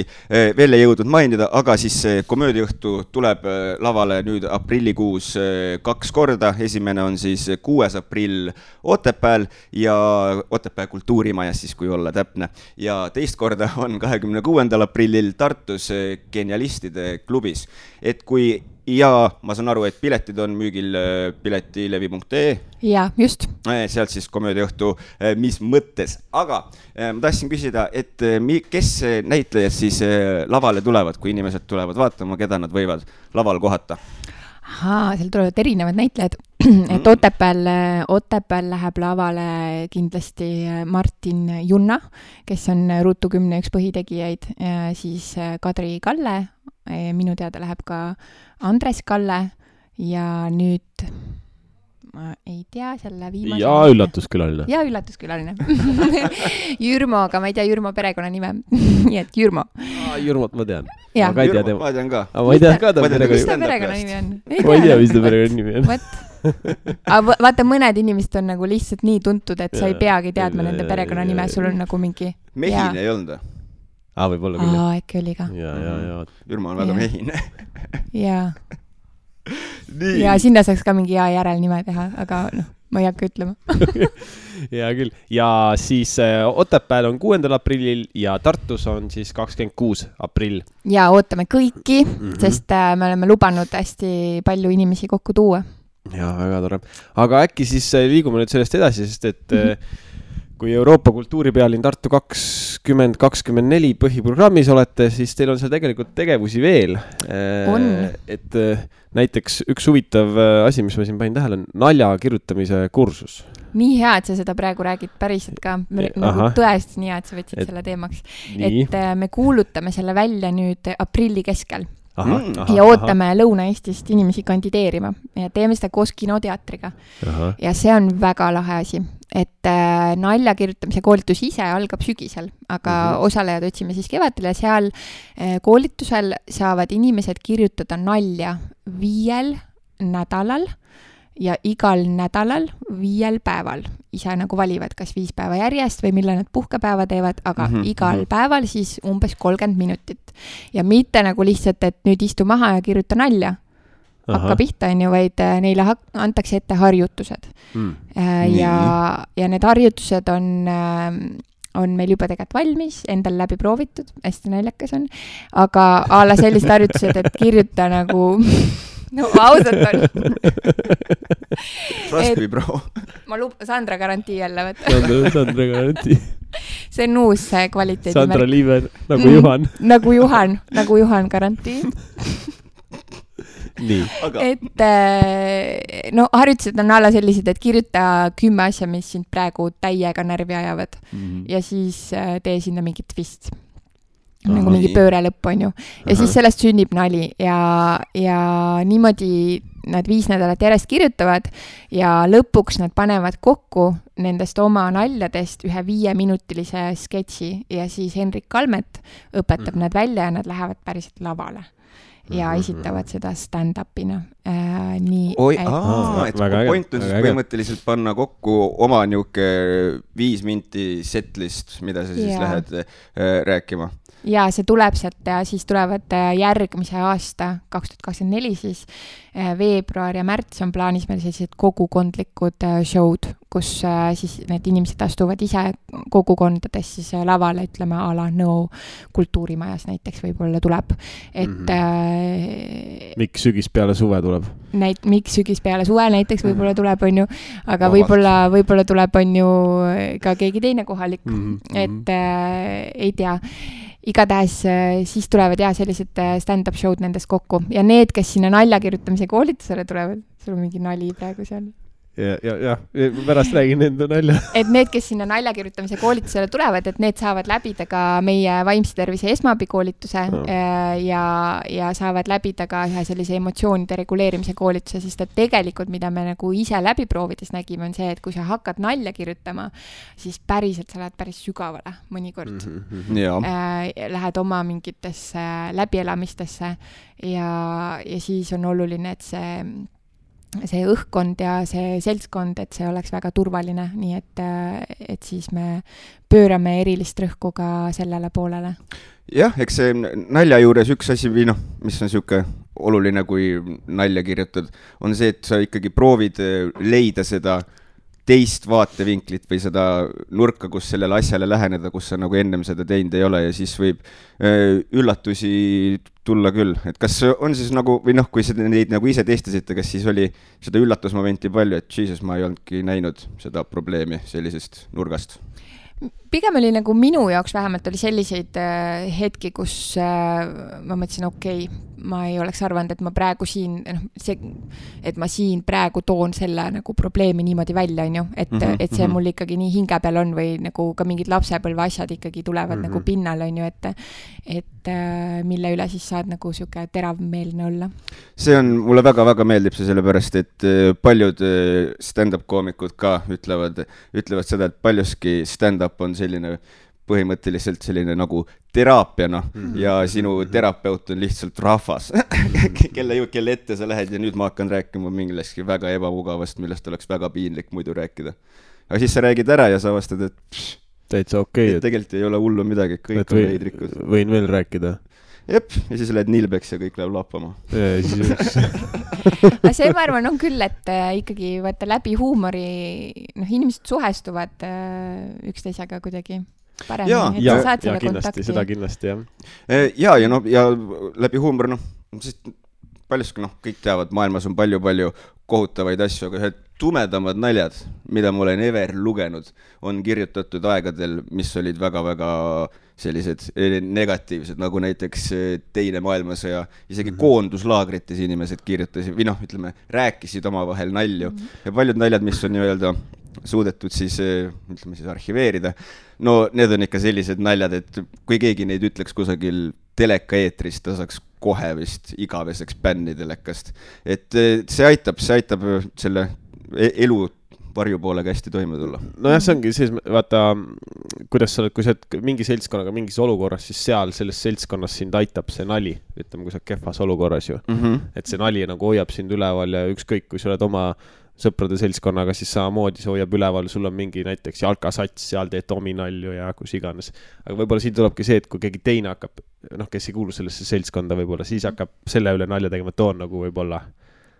veel ei jõudnud mainida, aga siis komöödiaõhtu tuleb lavale nüüd aprillikuus 2 korda. Esimene on siis 6. aprill Otepääl ja Otepää kultuurimajas siis, kui olla täpne. Ja teist korda on 26. aprillil Tartus Genialistide klubis. Et kui ma saan aru, et piletid on müügil piletilevi.ee. Ja, just. Sealt siis komöödiaõhtu, mis mõttes. Aga ma tahtsin küsida, et kes näitlejad siis lavale tulevad, kui inimesed tulevad vaatama, keda nad võivad laval kohata? Seal tulevad erinevad näitlejad. Et Otepääl läheb lavale kindlasti Martin Junna, kes on Ruutu 10 üks põhitegijaid, siis Kadri Kalle, minu teada läheb ka Andres Kalle ja nüüd ma ei tea, selle viimase... Ja üllatuskülaline. Ja üllatuskülaline. Jürmo, aga ma ei tea Jürmo perekonnanime. Nii et Jürmo. Jürmot ma tean. Ma tean ka. Ma ei tea ka ta perekonnanimi on. Ma ei tea, mis ta perekonnanimi on. Aga vaata, mõned inimesed on nagu lihtsalt nii tuntud, et sa ei peagi teadma nende perekonnanime, sul on nagu mingi... Mehine ei olnud? Võib-olla küll. Äkki oli ka. Ja. Ürma on väga mehine. Ja. Ja sinna saaks ka mingi hea järelnime teha, aga ma ei hakka ütlema. Ja küll. Ja siis Otepääl on 6. aprillil ja Tartus on siis 26. aprill. Ja ootame kõiki, sest me oleme lubanud hästi palju inimesi kokku tuua. Ja, väga tore. Aga äkki siis liigume nüüd sellest edasi, sest et kui Euroopa kultuuripealinn Tartu 2024 põhiprogrammis olete, siis teil on seal tegelikult tegevusi veel. On. Et näiteks üks huvitav asi, mis ma siin panin tähele, on nalja kirjutamise kursus. Nii hea, et sa seda praegu räägid päriselt ka. Nagu tõesti nii hea, et sa võtsid selle teemaks. Nii. Et me kuulutame selle välja nüüd aprilli keskel. Ja ootame Lõuna-Eestist inimesi kandideerima ja teeme seda koos kinoteatriga. Ja see on väga lahe asi, et nalja kirjutamise koolitus ise algab sügisel, aga osalejad otsime siis kevadel ja seal koolitusel saavad inimesed kirjutada nalja 5 nädalal ja igal nädalal 5 päeval. Ise nagu valivad, kas 5 päeva järjest või millal nad puhkepäeva teevad, aga igal päeval siis umbes 30 minutit. Ja mitte nagu lihtsalt, et nüüd istu maha ja kirjuta nalja. Hakka pihta, vaid neile antakse ette harjutused. Ja need harjutused on meil juba tegelikult valmis, endal läbi proovitud, hästi naljakas on, aga ala sellised harjutused, et kirjuta nagu... No ausalt on. Trust me, bro. Ma Sandra garantii jälle võtta. Sandra garantii. See on uus kvaliteedi Sandra Liiver, nagu Juhan. Nagu Juhan garantii. Nii. Et harjutused on alla sellised, et kirjuta 10 asja, mis sind praegu täiega närvi ajavad. Ja siis tee sinna mingi twist. Nagu mingi pööre lõpp on ju. Ja siis sellest sünnib nali ja niimoodi nad 5 nädalat järjest kirjutavad ja lõpuks nad panevad kokku nendest oma naljadest ühe 5-minutilise sketši ja siis Henrik Kalmet õpetab nad välja ja nad lähevad päriselt lavale. Ja esitavad seda stand-upina. Et point on siis põhimõtteliselt panna kokku oma niuke 5 minti setlist, mida sa siis lähed rääkima. Ja see tuleb sealt ja siis tulevad järgmise aasta 2024 siis veebruar ja märts on plaanis meil sellised kogukondlikud show'd, kus siis need inimesed astuvad ise kogukondades siis lavale, ütleme ala Nõo kultuurimajas näiteks võib-olla tuleb. Et miks sügis peale suve tuleb? Miks sügis peale suve näiteks võib-olla tuleb, on ju, aga võib-olla tuleb, on ju, ka keegi teine kohalik, et ei tea. Igatahes siis tulevad sellised stand-up show'd nendest kokku ja need, kes sinna nalja kirjutamise koolitusele tulevad, sul on mingi nali praegu seal. Ja, pärast räägin enda nalja. Et need, kes sinna nalja kirjutamise koolitusele tulevad, et need saavad läbida ka meie vaimse tervise esmaabikoolituse ja saavad läbida ka ühe sellise emotsioonide reguleerimise koolituse, sest et tegelikult, mida me nagu ise läbi proovides nägime, on see, et kui sa hakkad nalja kirjutama, siis päriselt sa lähed päris sügavale mõnikord. Lähed oma mingitesse läbielamistesse ja siis on oluline, et see õhkkond ja see seltskond, et see oleks väga turvaline, nii et siis me pöörame erilist rõhku ka sellele poolele. Jah, eks see nalja juures üks asi või mis on siuke oluline, kui nalja kirjutad, on see, et sa ikkagi proovid leida seda teist vaatevinklit või seda nurka, kus sellele asjale läheneda, kus sa nagu ennem seda teinud ei ole ja siis võib üllatusi tulla küll. Et kas on siis nagu, või kui neid nagu ise testasite, kas siis oli seda üllatusmomenti palju, et Jesus, ma ei olnudki näinud seda probleemi sellisest nurgast? Pigem oli nagu minu jaoks vähemalt oli selliseid hetki, kus ma mõtlesin, okei, ma ei oleks arvanud, et ma praegu siin, et ma siin praegu toon selle nagu probleemi niimoodi välja, on ju, et see mul ikkagi nii hinge peal on või nagu ka mingid lapsepõlve asjad ikkagi tulevad nagu pinnal, on ju, et mille üle siis saad nagu siuke teravmeelne olla. See on, mulle väga-väga meeldib see sellepärast, et paljud stand-up koomikud ka ütlevad seda, et paljuski stand-up on selline põhimõtteliselt selline nagu teraapiana ja sinu terapeut on lihtsalt rahvas, kelle ette sa lähed ja nüüd ma hakkan rääkima mingilegi väga ebamugavast, millest oleks väga piinlik muidu rääkida. Aga siis sa räägid ära ja sa vastad, et täitsa okei. Tegelikult ei ole hullu midagi, kõik on veidrikud. Võin veel rääkida. Jep, ja siis lähed Nilbeks ja kõik läheb lappama. Aga see, ma arvan, on küll, et ikkagi vaata läbi huumori, inimesed suhestuvad üksteisega kuidagi paremini. Ja kindlasti, seda kindlasti, jah. Ja läbi huumor, paljuski, kõik teavad, maailmas on palju kohutavaid asju, aga ühed tumedamad naljad, mida ma olen ever lugenud, on kirjutatud aegadel, mis olid väga-väga sellised negatiivsed, nagu näiteks Teine maailmasõja, isegi koonduslaagrites inimesed kirjutasid, või ütleme, rääkisid omavahel nalju. Ja paljud naljad, mis on nii-öelda suudetud siis, ütleme siis arhiveerida, need on ikka sellised naljad, et kui keegi neid ütleks kusagil teleka eetrist, ta saaks kohe vist igaveseks bänni telekast. Et see aitab selle elu varjupoolega hästi toime tulla. Nojah, see ongi siis, vaata, kuidas sa oled, kui sa oled mingi seltskonnaga mingis olukorras, siis seal selles seltskonnas sind aitab see nali, ütleme, kui sa oled kehvas olukorras ju. Et see nali nagu hoiab sind üleval ja ükskõik, kui sa oled oma sõprade seltskonnaga, siis samamoodi see hoiab üleval, sul on mingi näiteks jalkasats, seal teed dominalju ja kus iganes. Aga võib-olla siin tulebki see, et kui keegi teine hakkab, kes ei kuulu sellesse seltskonda võib-olla, siis hakkab selle üle nalja tegema, toon nagu võib-olla.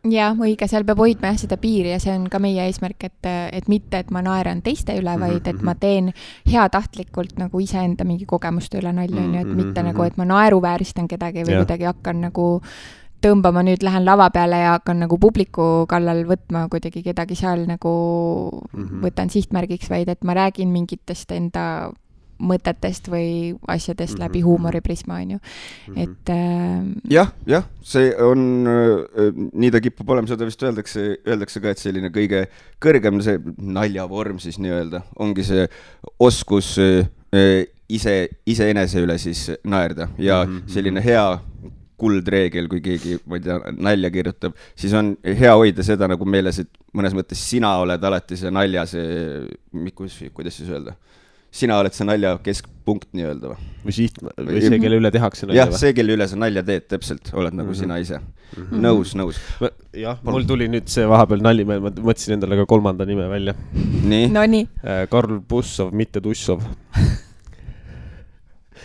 Ja, õige, seal peab hoidma seda piiri ja see on ka meie eesmärk, et mitte, et ma naeran teiste üle, vaid et ma teen heatahtlikult nagu iseenda mingi kogemuste üle nalja, et mitte nagu, et ma naeruvääristan kedagi või kuidagi hakkan nagu tõmbama, nüüd lähen lava peale ja hakkan nagu publiku kallal võtma kuidagi kedagi seal nagu võtan sihtmärgiks, vaid et ma räägin mingitest enda mõtetest või asjadest läbi huumoriprisma, on ju. Et jah, see on, nii ta kipub olema, seda vist öeldakse ka, et selline kõige kõrgem see naljavorm siis nii-öelda, ongi see oskus iseenese üle siis naerda ja selline hea kuldreegel, kui keegi, ma ei tea, nalja kirjutab, siis on hea hoida seda nagu meeles, et mõnes mõttes sina oled alati see nalja, kuidas siis öelda? Sina oled see nalja keskpunkt nii-öelda või see, kelle üle tehakse nalja? Jah, see, kelle üle sa nalja teed, täpselt, oled nagu sina ise. Nõus. Jah, mul tuli nüüd see vahepeal nali, ma mõtlesin endale ka 3. nime välja. Nii? Karl Bussov, mitte Tussov.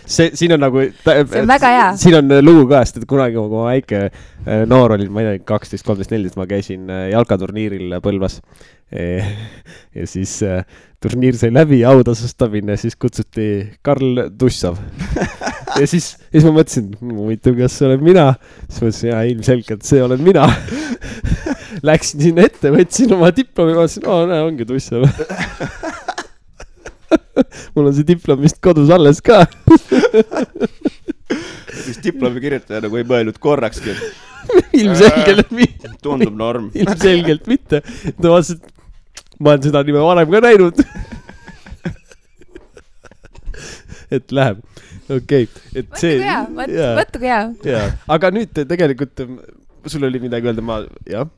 Siin on nagu... See on väga hea. Siin on lugu käest, et kunagi, kui ma väike noor olin, ma ei tea, 12, 13, 14, ma käisin jalkaturniiril Põlvas. Ja siis turniir sai läbi, autasustamine, siis kutsuti Karl Tussov. Ja siis ma mõtlesin, huvitav, kas see olen mina? Siis mõtlesin, ilmselgelt see olen mina. Läksin sinna ette, võtsin oma diplomi, mõtlesin, ongi Tussov. Mul on see diplom vist kodus alles ka. Siis diplomi kirjutaja nagu ei mõelnud korrakski. Ilmselgelt mitte. Tundub norm. Ilmselgelt mitte. Ta vastas, et ma olen seda nime varem ka näinud. Et läheb. Okei. Võttu hea. Aga nüüd tegelikult... Sul oli midagi öelda,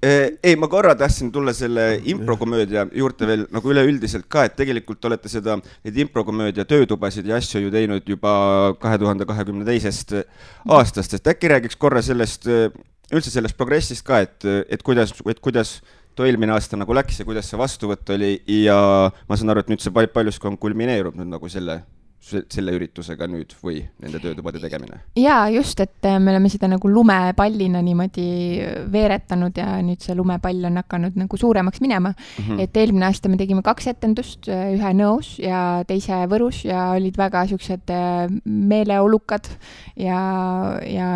Ei, ma korra tahtsin tulla selle improkomöödia juurde veel nagu üleüldiselt ka, et tegelikult olete neid improkomöödia töötubasid ja asju ju teinud juba 2022. aastast, et äkki räägiks korra üldse sellest progressist ka, et kuidas too eelmine aasta nagu läks ja kuidas see vastuvõtt oli ja ma saan aru, et nüüd see paljuski on kulmineerub nüüd nagu selle üritusega nüüd või nende töötubade tegemine? Jaa, just, et me oleme seda nagu lumepallina niimoodi veeretanud ja nüüd see lumepall on hakanud nagu suuremaks minema. Et eelmine aasta me tegime 2 etendust, ühe Nõos ja teise Võrus ja olid väga siuksed meeleolukad ja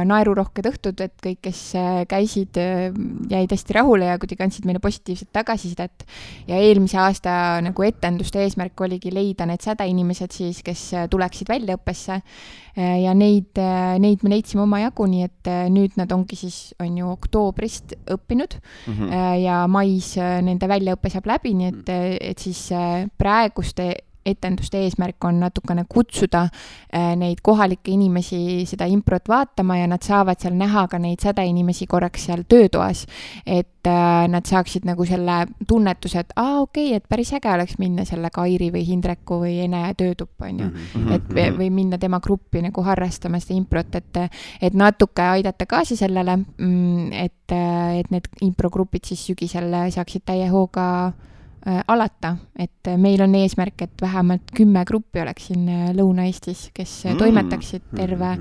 naerurohked õhtud, et kõik, kes käisid, jäid hästi rahule ja kuidagi andsid meile positiivset tagasisidet. Ja eelmise aasta nagu etenduste eesmärk oligi leida need sädeinimesed siis, kes tuleksid väljaõppesse ja neid me leidsime oma jagu, nii et nüüd nad ongi siis, on ju oktoobrist õppinud ja mais nende väljaõppe saab läbi, nii et siis praeguste etenduste eesmärk on natukene kutsuda neid kohalikke inimesi seda improt vaatama ja nad saavad seal näha ka neid sädeinimesi korraks seal töötoas, et nad saaksid nagu selle tunnetuse, et okei, et päris äge oleks minna selle Kairi või Hindreku või Ene töötuppa, on ju. Või minna tema gruppi nagu harrastama seda improt, et natuke aidata kaasa sellele, et need improgrupid siis sügisel saaksid täie hooga alata, et meil on eesmärk, et vähemalt 10 gruppi oleks siin Lõuna-Eestis, kes toimetaksid terve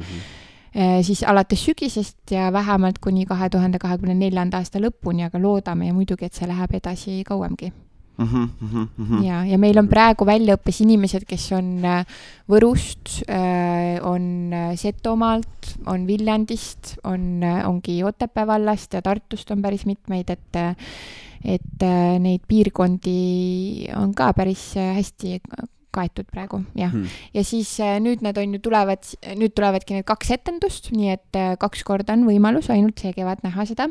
siis alates sügisest ja vähemalt kuni 2024. aasta lõpuni, aga loodame ja muidugi, et see läheb edasi kauemgi. Ja meil on praegu väljaõppes inimesed, kes on Võrust, on Setomaalt, on Viljandist, ongi Otepää vallast ja Tartust on päris mitmeid, et neid piirkondi on ka päris hästi kaetud praegu, jah. Ja siis nüüd tulevadki need 2 etendust, nii et 2 korda on võimalus ainult see kevad näha seda.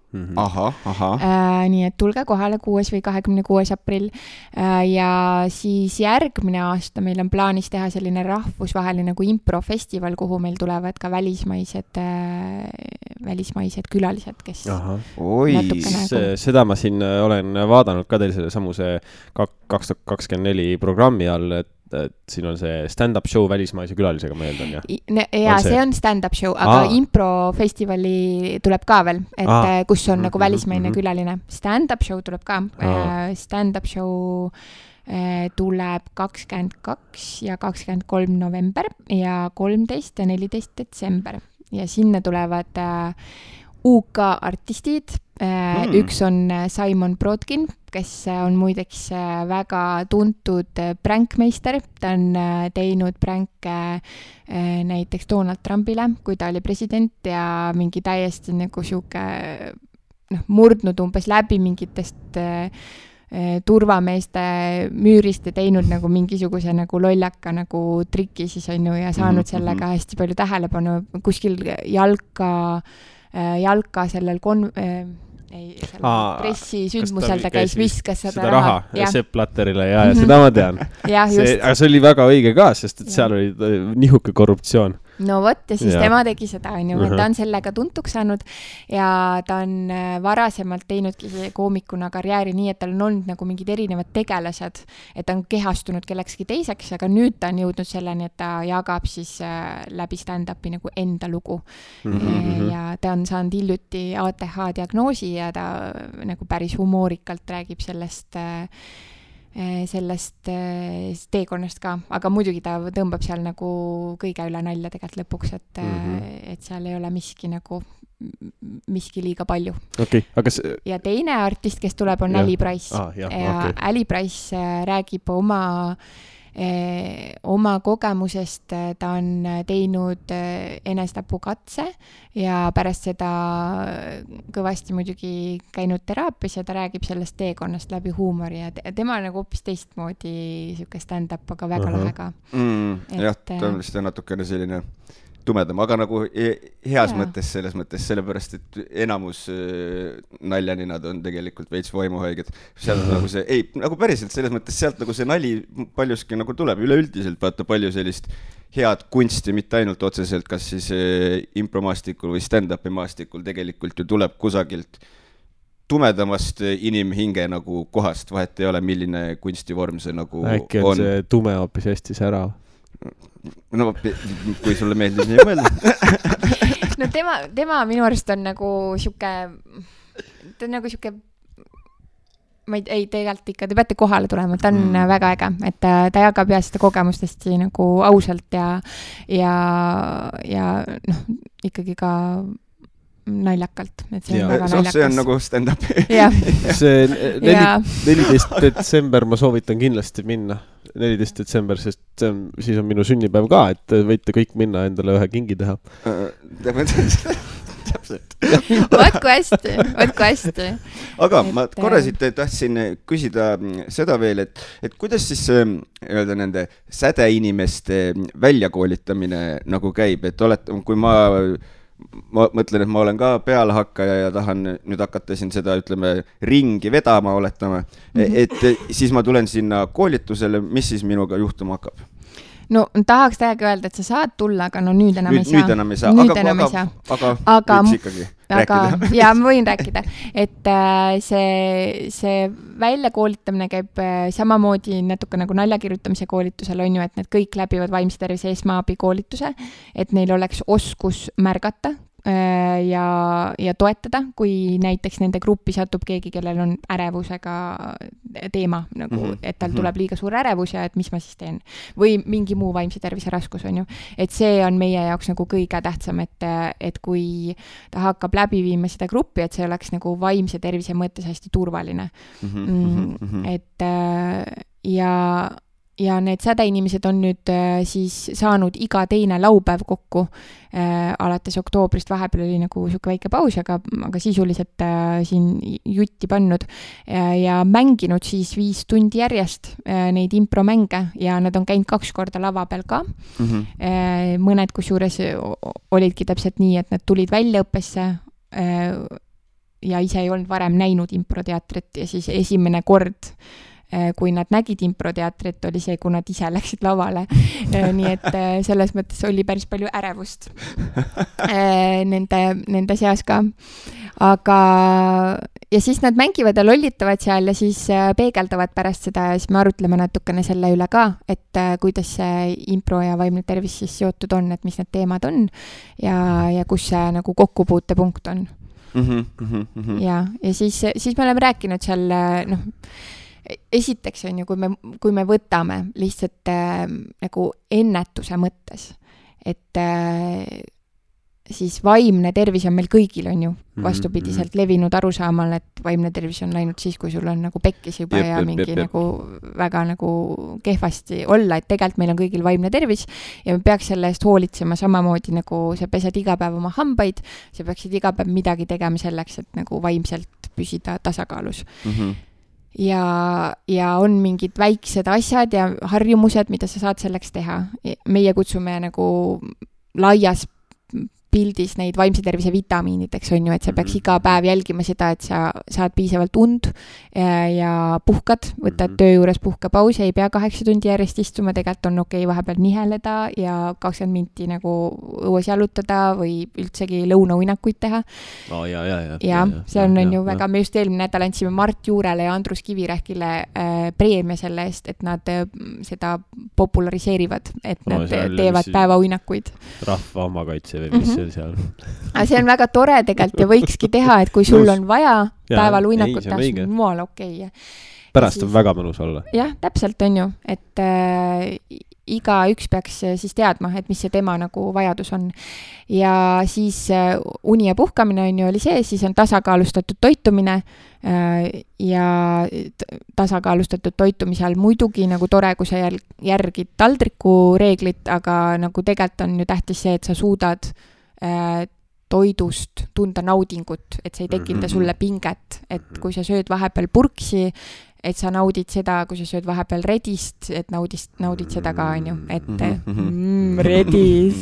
Nii et tulge kohale 6. või 26. aprill ja siis järgmine aasta meil on plaanis teha selline rahvusvaheline nagu improfestival, kuhu meil tulevad ka välismaised külalised, kes seda ma siin olen vaadanud ka teil selle samuse 2024 programmi all, et siin on see stand-up show välismaise külalisega, ma eeldan, jah? Ja see on stand-up show, aga improfestivali tuleb ka veel, et kus on nagu välismaine külaline. Stand-up show tuleb ka. Stand-up show tuleb 22 ja 23 november ja 13 ja 14 detsember. Ja sinna tulevad UK artistid. Üks on Simon Brodkin, kes on muideks väga tuntud prankmeister. Ta on teinud pränke näiteks Donald Trumpile, kui ta oli president ja mingi täiesti nagu siuke murdnud umbes läbi mingitest turvameeste müürist ja teinud nagu mingisuguse nagu lollaka nagu triki siis on ju ja saanud sellega hästi palju tähelepanu kuskil jalka sellel pressisündmusel ta käis, viskas seda raha. Sepp Blatterile ja seda ma tean. Aga see oli väga õige ka, sest et seal oli nihuke korruptsioon. No vot, ja siis tema tegi seda, et ta on sellega tuntuks saanud ja ta on varasemalt teinudki koomikuna karjääri nii, et tal on olnud nagu mingid erinevad tegelased, et ta on kehastunud kellekski teiseks, aga nüüd ta on jõudnud selleni, et ta jagab siis läbi stand-upi nagu enda lugu. Ja ta on saanud hiljuti ATH diagnoosi ja ta nagu päris humoorikalt räägib sellest teekonnast ka, aga muidugi ta tõmbab seal nagu kõige üle nalja tegelikult lõpuks, et seal ei ole miski liiga palju. Aga ja teine artist, kes tuleb, on Ali Price. Ali Price räägib oma kogemusest, ta on teinud enesetapukatse ja pärast seda kõvasti muidugi käinud teraapias ja ta räägib sellest teekonnast läbi huumori ja tema nagu hoopis teistmoodi siuke stand-up, aga väga lahe ka. Jah, ta on vist natukene selline tumedam, aga nagu heas mõttes selles mõttes, sellepärast, et enamus naljaninad on tegelikult veits vaimuhaiged. Seal on nagu see, nagu päriselt selles mõttes sealt nagu see nali paljuski nagu tuleb üleüldiselt, vaata palju sellist head kunsti, mitte ainult otseselt, kas siis impromaastikul või stand-upi maastikul tegelikult ju tuleb kusagilt tumedamast inimhinge nagu kohast, vahet ei ole, milline kunstivorm see nagu on. Äkki on see tume hoopis hästi särav? No, kui sulle meeldib nii mõelda. No tema minu arust on nagu siuke, ma ei tegelikult ikka, te peate kohale tulema, ta on väga äge, et ta jagab ja seda kogemust hästi nagu ausalt ja ikkagi ka naljakalt, et see on väga naljakas. See on nagu stand-up. See 14. detsember ma soovitan kindlasti minna. 14. detsember, sest siis on minu sünnipäev ka, et võite kõik minna endale ühe kingi teha. Täpselt. Võtku hästi. Aga ma korra siit tahtsin küsida seda veel, et kuidas siis öelda nende sädeinimeste väljakoolitamine nagu käib, et kui ma mõtlen, et ma olen ka pealehakkaja ja tahan nüüd hakata siin seda, ütleme, ringi vedama oletama, et siis ma tulen sinna koolitusele, mis siis minuga juhtuma hakkab? No tahaks täiega öelda, et sa saad tulla, aga no nüüd enam ei saa. Nüüd enam ei saa, aga võiks ikkagi rääkida. Ja ma võin rääkida, et see väljakoolitamine käib samamoodi natuke nagu naljakirjutamise koolitusel on ju, et need kõik läbivad vaimse tervise esmaabi koolituse, et neil oleks oskus märgata ja toetada, kui näiteks nende gruppi satub keegi, kellel on ärevusega teema, nagu, et tal tuleb liiga suur ärevus ja et mis ma siis teen. Või mingi muu vaimse tervise raskus on ju. Et see on meie jaoks nagu kõige tähtsam, et kui ta hakkab läbi viima seda gruppi, et see oleks nagu vaimse tervise mõttes hästi turvaline. Et ja need sädeinimesed on nüüd siis saanud iga teine laupäev kokku alates oktoobrist, vahepeal oli nagu siuke väike paus, aga sisuliselt siin jutti pannud ja mänginud siis 5 tundi järjest neid impromänge ja nad on käinud 2 korda lava peal ka. Mõned kusjuures olidki täpselt nii, et nad tulid väljaõppesse ja ise ei olnud varem näinud improteatrit ja siis esimene kord kui nad nägid improteatrit, oli see, kui nad ise läksid lavale. Nii et selles mõttes oli päris palju ärevust nende seas ka. Aga ja siis nad mängivad ja lollitavad seal ja siis peegeldavad pärast seda ja siis me arutleme natukene selle üle ka, et kuidas see impro ja vaimne tervis siis seotud on, et mis need teemad on ja kus see nagu kokkupuutepunkt on. Ja siis me oleme rääkinud seal, esiteks on ju, kui me võtame lihtsalt nagu ennetuse mõttes, et siis vaimne tervis on meil kõigil on ju vastupidiselt levinud arusaamal, et vaimne tervis on läinud siis, kui sul on nagu pekkis juba ja mingi nagu väga nagu kehvasti olla, et tegelikult meil on kõigil vaimne tervis ja me peaks selle eest hoolitsema samamoodi nagu sa pesed iga päev oma hambaid, sa peaksid iga päev midagi tegema selleks, et nagu vaimselt püsida tasakaalus. Ja on mingid väiksed asjad ja harjumused, mida sa saad selleks teha. Meie kutsume nagu laias pildis neid vaimse tervise vitamiinideks on ju, et sa peaks iga päev jälgima seda, et sa saad piisavalt und ja puhkad, võtad töö juures puhkapausi, ei pea 8 tundi järjest istuma, tegelikult on okei vahepeal niheleda ja 20 minti nagu õues jalutada või üldsegi lõunauinakuid teha. Ja see on ju väga, me just eelmine nädal andsime Mart Juurele ja Andrus Kivirähkile preemia selle eest, et nad seda populariseerivad, et nad teevad päevauinakuid. Rahva omakaitse või mis seal. See on väga tore tegelikult ja võikski teha, et kui sul on vaja päeval uinakut teha, see on mual okei. Pärast on väga mõnus olla. Jah, täpselt on ju, et iga üks peaks siis teadma, et mis see tema nagu vajadus on. Ja siis uni ja puhkamine on ju oli see, siis on tasakaalustatud toitumine ja tasakaalustatud toitumise all muidugi nagu tore, kui sa järgid taldriku reeglit, aga nagu tegelikult on ju tähtis see, et sa suudad toidust tunda naudingut, et see ei tekita sulle pinget, et kui sa sööd vahepeal purksi, et sa naudid seda, kui sa sööd vahepeal redist, et naudid seda ka, on ju, et redis.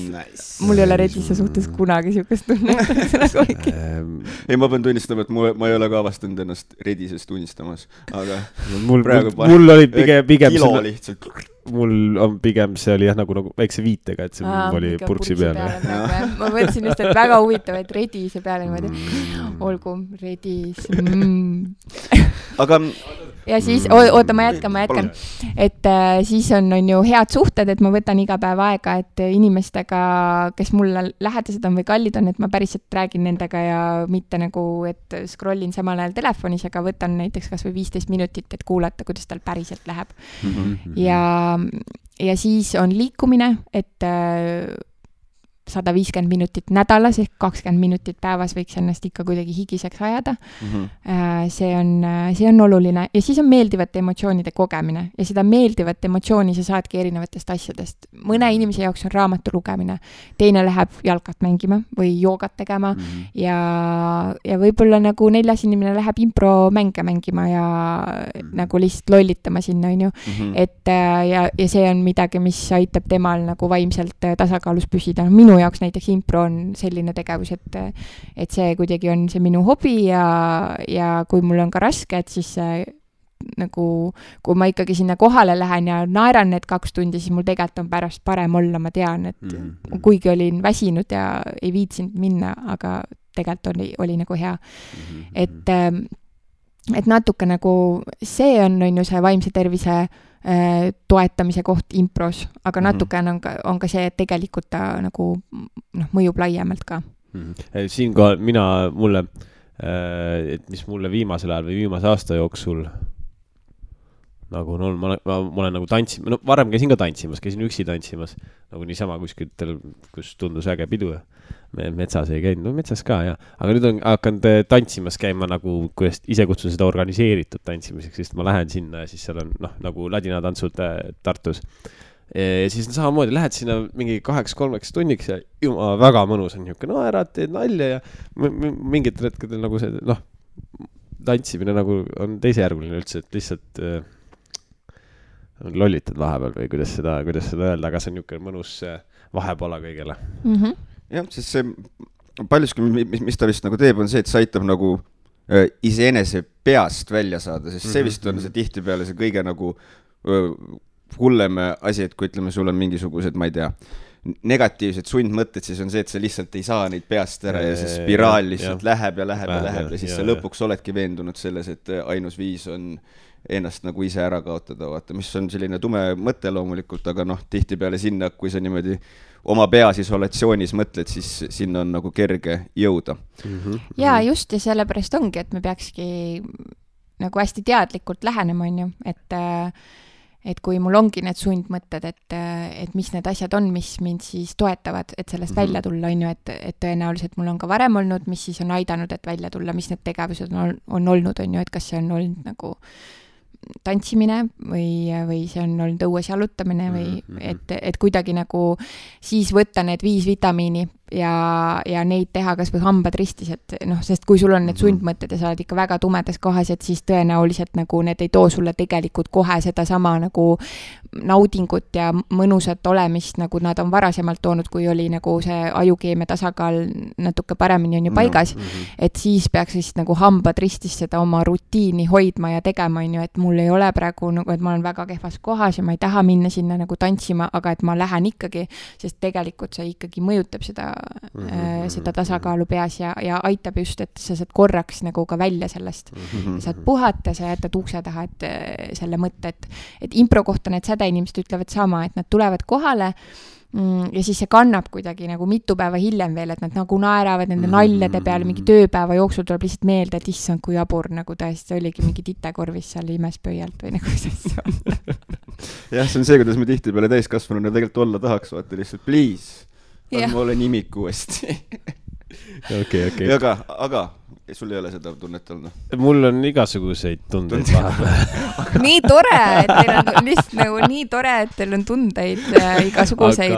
Mul ei ole redise suhtes kunagi siukest tunnet. Ei, ma pean tunnistama, et ma ei ole ka avastanud ennast redisest unistamas, aga mul oli pigem kilo lihtsalt. Mul on pigem see oli jah nagu väikse viitega, et see oli purksi peale. Ma mõtlesin just, et väga huvitav, et redise peale niimoodi. Olgu, redis. Aga ja siis, oota, ma jätkan. Et siis on ju head suhted, et ma võtan iga päev aega, et inimestega, kes mulle lähedased on või kallid on, et ma päriselt räägin nendega ja mitte nagu, et scrollin samal ajal telefonis, aga võtan näiteks kas või 15 minutit, et kuulata, kuidas tal päriselt läheb. Ja siis on liikumine, et 150 minutit nädalas ehk 20 minutit päevas võiks ennast ikka kuidagi higiseks ajada. See on oluline. Ja siis on meeldivate emotsioonide kogemine. Ja seda meeldivat emotsiooni sa saadki erinevatest asjadest. Mõne inimese jaoks on raamatu lugemine. Teine läheb jalkat mängima või joogat tegema. Ja võib-olla nagu 4. inimene läheb impro mänge mängima ja nagu lihtsalt lollitama sinna, on ju. Et ja see on midagi, mis aitab temal nagu vaimselt tasakaalus püsida. Minu jaoks näiteks impro on selline tegevus, et see kuidagi on see minu hobi ja kui mul on ka raske, et siis nagu, kui ma ikkagi sinna kohale lähen ja naeran need 2 tundi, siis mul tegelikult on pärast parem olla, ma tean, et kuigi olin väsinud ja ei viitsinud minna, aga tegelikult oli nagu hea. Et natuke nagu see on ju see vaimse tervise toetamise koht impros, aga natuke on ka see, et tegelikult ta nagu mõjub laiemalt ka. Siinkohal mulle, et mis mulle viimasel ajal või viimase aasta jooksul nagu on olnud, ma olen nagu tantsimas, no varem käisin ka tantsimas, käisin üksi tantsimas, nagu niisama kuskitel, kus tundus äge pidu. Metsas ei käinud, no metsas ka, jah. Aga nüüd on hakanud tantsimas käima nagu, kuidas ise kutsun seda organiseeritud tantsimiseks, sest ma lähen sinna ja siis seal on, nagu ladinatantsud Tartus. Ja siis samamoodi lähed sinna mingi 2-3 tunniks ja väga mõnus on niisugune, no ära teed nalja ja mingitel hetkedel nagu see, tantsimine nagu on teisejärguline üldse, et lihtsalt lollitad vahepeal või kuidas seda öelda, aga see on niisugune mõnus vahepola kõigele. Jah, sest see paljuski, mis ta vist nagu teeb, on see, et see aitab nagu iseenese peast välja saada, sest see vist on see tihtipeale see kõige nagu hullem asi, et kui ütleme, sul on mingisugused, ma ei tea, negatiivsed sundmõtted, siis on see, et sa lihtsalt ei saa neid peast ära ja see spiraal lihtsalt läheb ja siis sa lõpuks oledki veendunud selles, et ainus viis on ennast nagu ise ära kaotada, vaata, mis on selline tume mõte loomulikult, aga tihtipeale sinna, kui sa niimoodi oma peas isolatsioonis mõtled, siis sinna on nagu kerge jõuda. Ja just ja sellepärast ongi, et me peakski nagu hästi teadlikult lähenema, on ju, et kui mul ongi need sundmõtted, et mis need asjad on, mis mind siis toetavad, et sellest välja tulla, on ju, et tõenäoliselt mul on ka varem olnud, mis siis on aidanud, et välja tulla, mis need tegevused on olnud, on ju, et kas see on olnud nagu tantsimine või see on olnud õues jalutamine või et kuidagi nagu siis võtta need 5 vitamiini ja neid teha kas või hambad ristis, et sest kui sul on need sundmõtted ja sa oled ikka väga tumedas kohas, et siis tõenäoliselt nagu need ei too sulle tegelikult kohe seda sama nagu naudingut ja mõnusat olemist, nagu nad on varasemalt toonud, kui oli nagu see ajukeemia tasakaal natuke paremini on ju paigas, et siis peaks siis nagu hambad ristis seda oma rutiini hoidma ja tegema, on ju, et mul ei ole praegu nagu, et ma olen väga kehvas kohas ja ma ei taha minna sinna nagu tantsima, aga et ma lähen ikkagi, sest tegelikult see ikkagi mõjutab seda tasakaalu peas ja aitab just, et sa saad korraks nagu ka välja sellest. Saad puhata, sa jätad ukse taha, et selle mõtte, et impro kohta need sädeinimesed ütlevad sama, et nad tulevad kohale ja siis see kannab kuidagi nagu mitu päeva hiljem veel, et nad nagu naeravad nende naljade peale, mingi tööpäeva jooksul tuleb lihtsalt meelde, et issand, kui jabur nagu tõesti oligi mingi titekorvis seal imespöialt või nagu see on. Jah, see on see, kuidas me tihtipeale täiskasvanuna tegelikult olla tahaks, vaata lihtsalt, please. Ma olen imik uuesti. Okay. Aga sul ei ole seda tunnet olnud? Mul on igasuguseid tundeid vahepeal. Nii tore, et teil on lihtsalt nagu nii tore, et teil on tundeid igasuguseid.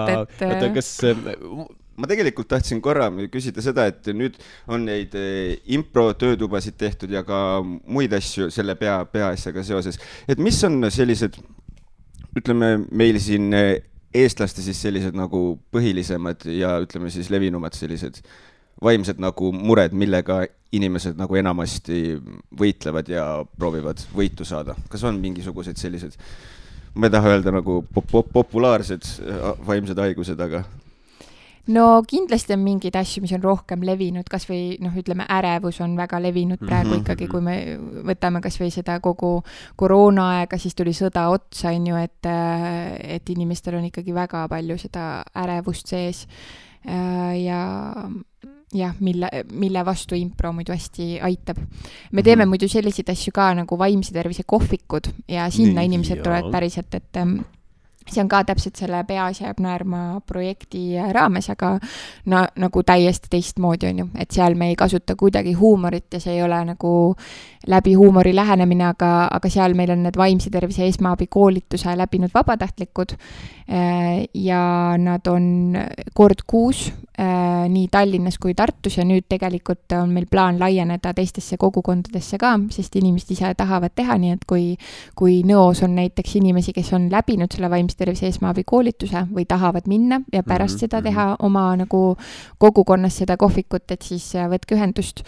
Aga kas... Ma tegelikult tahtsin korra küsida seda, et nüüd on neid impro-töötubasid tehtud ja ka muid asju selle peaasjaga seoses. Et mis on sellised, ütleme, meil siin eestlaste siis sellised nagu põhilisemad ja ütleme siis levinumad sellised vaimsed nagu mured, millega inimesed nagu enamasti võitlevad ja proovivad võitu saada. Kas on mingisugused sellised, ma ei taha öelda nagu populaarsed vaimsed haigused, aga... No kindlasti on mingid asju, mis on rohkem levinud, kas või ütleme, ärevus on väga levinud praegu ikkagi, kui me võtame kas või seda kogu koroonaaega, siis tuli sõda otsa, on ju, et inimestel on ikkagi väga palju seda ärevust sees ja mille vastu impro muidu hästi aitab. Me teeme muidu selliseid asju ka nagu vaimse tervise kohvikud ja sinna inimesed tulevad päriselt, et see on ka täpselt selle Peas jääb naerma projekti raames, aga nagu täiesti teistmoodi on ju, et seal me ei kasuta kuidagi huumorit ja see ei ole nagu läbi huumori lähenemine, aga seal meil on need vaimse tervise esmaabikoolituse läbinud vabatahtlikud ja nad on kord kuus nii Tallinnas kui Tartus ja nüüd tegelikult on meil plaan laieneda teistesse kogukondadesse ka, sest inimesed ise tahavad teha, nii et kui Nõos on näiteks inimesi, kes on läbinud selle vaimse tervise esmaabikoolituse või tahavad minna ja pärast seda teha oma nagu kogukonnas seda kohvikut, et siis võtke ühendust.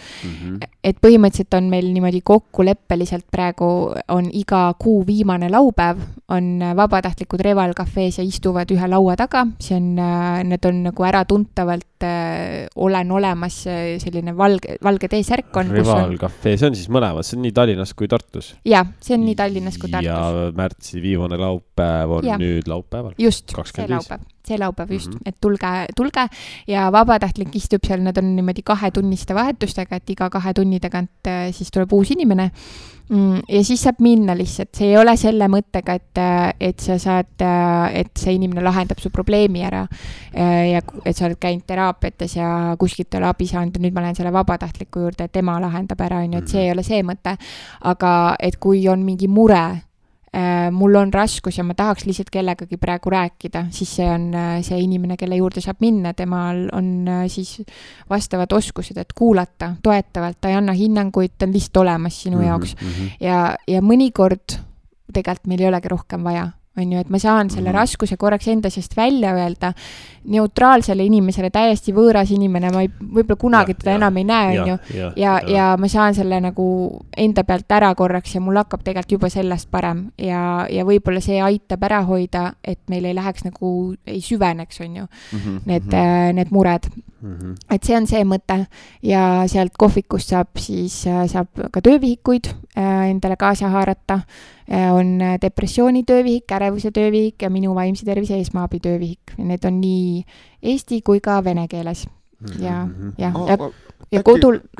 Et põhimõtteliselt on meil niimoodi kokkuleppeliselt praegu on iga kuu viimane laupäev, on vabatahtlikud Reval kafees ja istuvad ühe laua taga, need on nagu äratuntavalt olen olemas selline valge T-särk on. Reval kafee, see on siis mõlemad, see on nii Tallinnas kui Tartus? Jaa, see on nii Tallinnas kui Tartus. Ja märtsi viimane laupäev on nüüd laupäeval? Just, 25. See laupäev. see laupäev just, et tulge ja vabatahtlik istub seal, nad on niimoodi 2-tunniste vahetustega, et iga 2 tunni tagant siis tuleb uus inimene ja siis saab minna lihtsalt, see ei ole selle mõttega, et sa saad, et see inimene lahendab su probleemi ära ja et sa oled käinud teraapiates ja kuskilt ei ole abi saanud ja nüüd ma lähen selle vabatahtliku juurde, et tema lahendab ära, et see ei ole see mõte, aga et kui on mingi mure, mul on raskus ja ma tahaks lihtsalt kellegagi praegu rääkida, siis see on see inimene, kelle juurde saab minna, temal on siis vastavad oskused, et kuulata toetavalt, ta ei anna hinnanguid, ta on lihtsalt olemas sinu jaoks ja mõnikord tegelikult meil ei olegi rohkem vaja, on ju, et ma saan selle raskuse korraks enda seest välja öelda, neutraalsele inimesele täiesti võõras inimene, ma võib-olla kunagi teda enam ei näe, on ju, ja ma saan selle nagu enda pealt ära korraks ja mul hakkab tegelikult juba sellest parem ja võib-olla see aitab ära hoida, et meil ei läheks nagu, ei süveneks, on ju, need mured. Et see on see mõte ja sealt kohvikust saab ka töövihikuid endale kaasa haarata, on depressiooni töövihik, ärevuse töövihik ja minu vaimse tervise esmaabi töövihik. Need on nii eesti kui ka vene keeles. Ja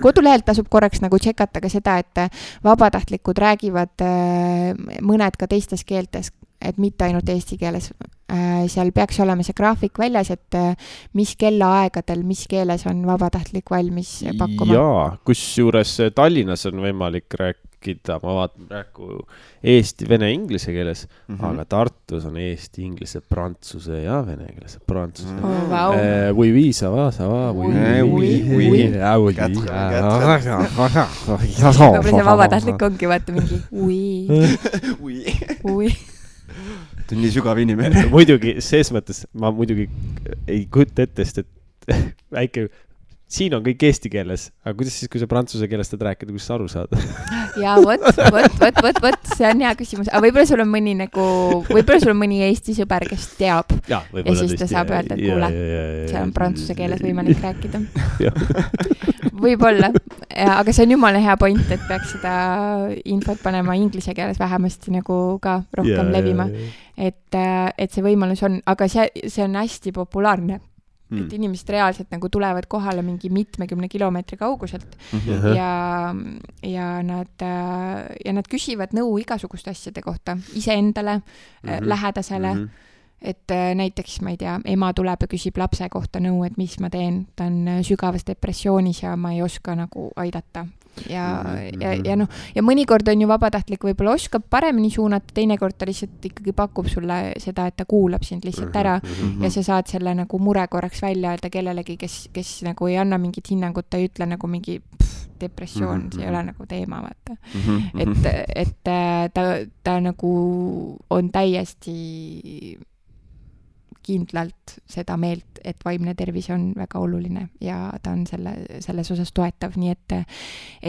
kodulehelt tasub korraks nagu tšekata ka seda, et vabatahtlikud räägivad mõned ka teistes keeltes, et mitte ainult eesti keeles. Seal peaks olema see graafik väljas, et mis kellaaegadel, mis keeles on vabatahtlik valmis pakkuma. Jaa, kus juures Tallinnas on võimalik rääkida, ma vaatan praegu eesti, vene, inglise keeles, aga Tartus on eesti, inglise, prantsuse ja vene keeles. Prantsuse. Oui, ça va, oui. Võib-olla see vabatahtlik ongi, vaata mingi oui. Ta on nii sügav inimene. Muidugi, ses mõttes ma muidugi ei kujuta ette, et väike, siin on kõik eesti keeles, aga kuidas siis, kui sa prantsuse keelest rääkida, kuidas sa aru saad? Ja võt, see on hea küsimus. Aga võib-olla sul on mõni Eesti sõber, kes teab ja siis ta saab öelda, et kuule, see on prantsuse keeles võimalik rääkida. Võib-olla, aga see on jumala hea point, et peaks seda infot panema inglise keeles vähemasti nagu ka rohkem levima. Et see võimalus on, aga see on hästi populaarne. Et inimesed reaalselt nagu tulevad kohale mingi 70 kilomeetri kauguselt ja nad küsivad nõu igasuguste asjade kohta, iseendale, lähedasele, et näiteks, ma ei tea, ema tuleb ja küsib lapse kohta nõu, et mis ma teen, ta on sügavas depressioonis ja ma ei oska nagu aidata. Ja mõnikord on ju vabatahtlik võib-olla oskab paremini suunata, teinekord ta lihtsalt ikkagi pakub sulle seda, et ta kuulab sind lihtsalt ära ja sa saad selle nagu mure korraks välja öelda kellelegi, kes nagu ei anna mingit hinnangut, ta ei ütle nagu mingi depressioon, see ei ole nagu teema, vaata. Et ta nagu on täiesti kindlalt seda meelt, et vaimne tervis on väga oluline ja ta on selles osas toetav, nii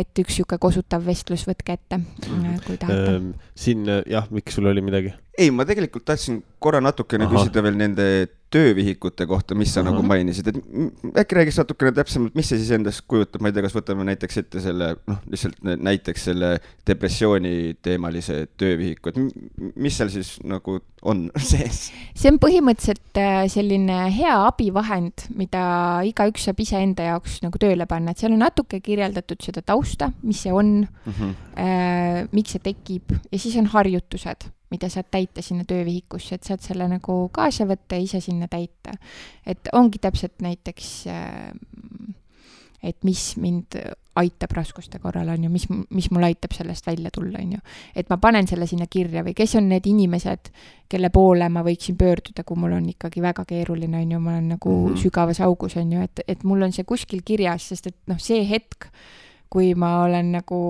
et üks siuke kosutav vestlus võtke ette, kui tahate. Siin, miks sul oli midagi? Ei, ma tegelikult tahtsin korra natukene küsida veel nende töövihikute kohta, mis sa nagu mainisid, et äkki räägis natukene täpsemalt, mis see siis endast kujutab, ma ei tea, kas võtame näiteks ette selle, lihtsalt näiteks selle depressiooni teemalise töövihiku, et mis seal siis nagu on sees? See on põhimõtteliselt selline hea abivahend, mida igaüks saab ise enda jaoks nagu tööle panna, et seal on natuke kirjeldatud seda tausta, mis see on, miks see tekib ja siis on harjutused, mida saad täita sinna töövihikusse, et saad selle nagu kaasa võtta ja ise sinna täita. Et ongi täpselt näiteks, et mis mind aitab raskuste korral, on ju, mis mul aitab sellest välja tulla, on ju. Et ma panen selle sinna kirja või kes on need inimesed, kelle poole ma võiksin pöörduda, kui mul on ikkagi väga keeruline, on ju, ma olen nagu sügavas augus, on ju, et mul on see kuskil kirjas, sest et see hetk, kui ma olen nagu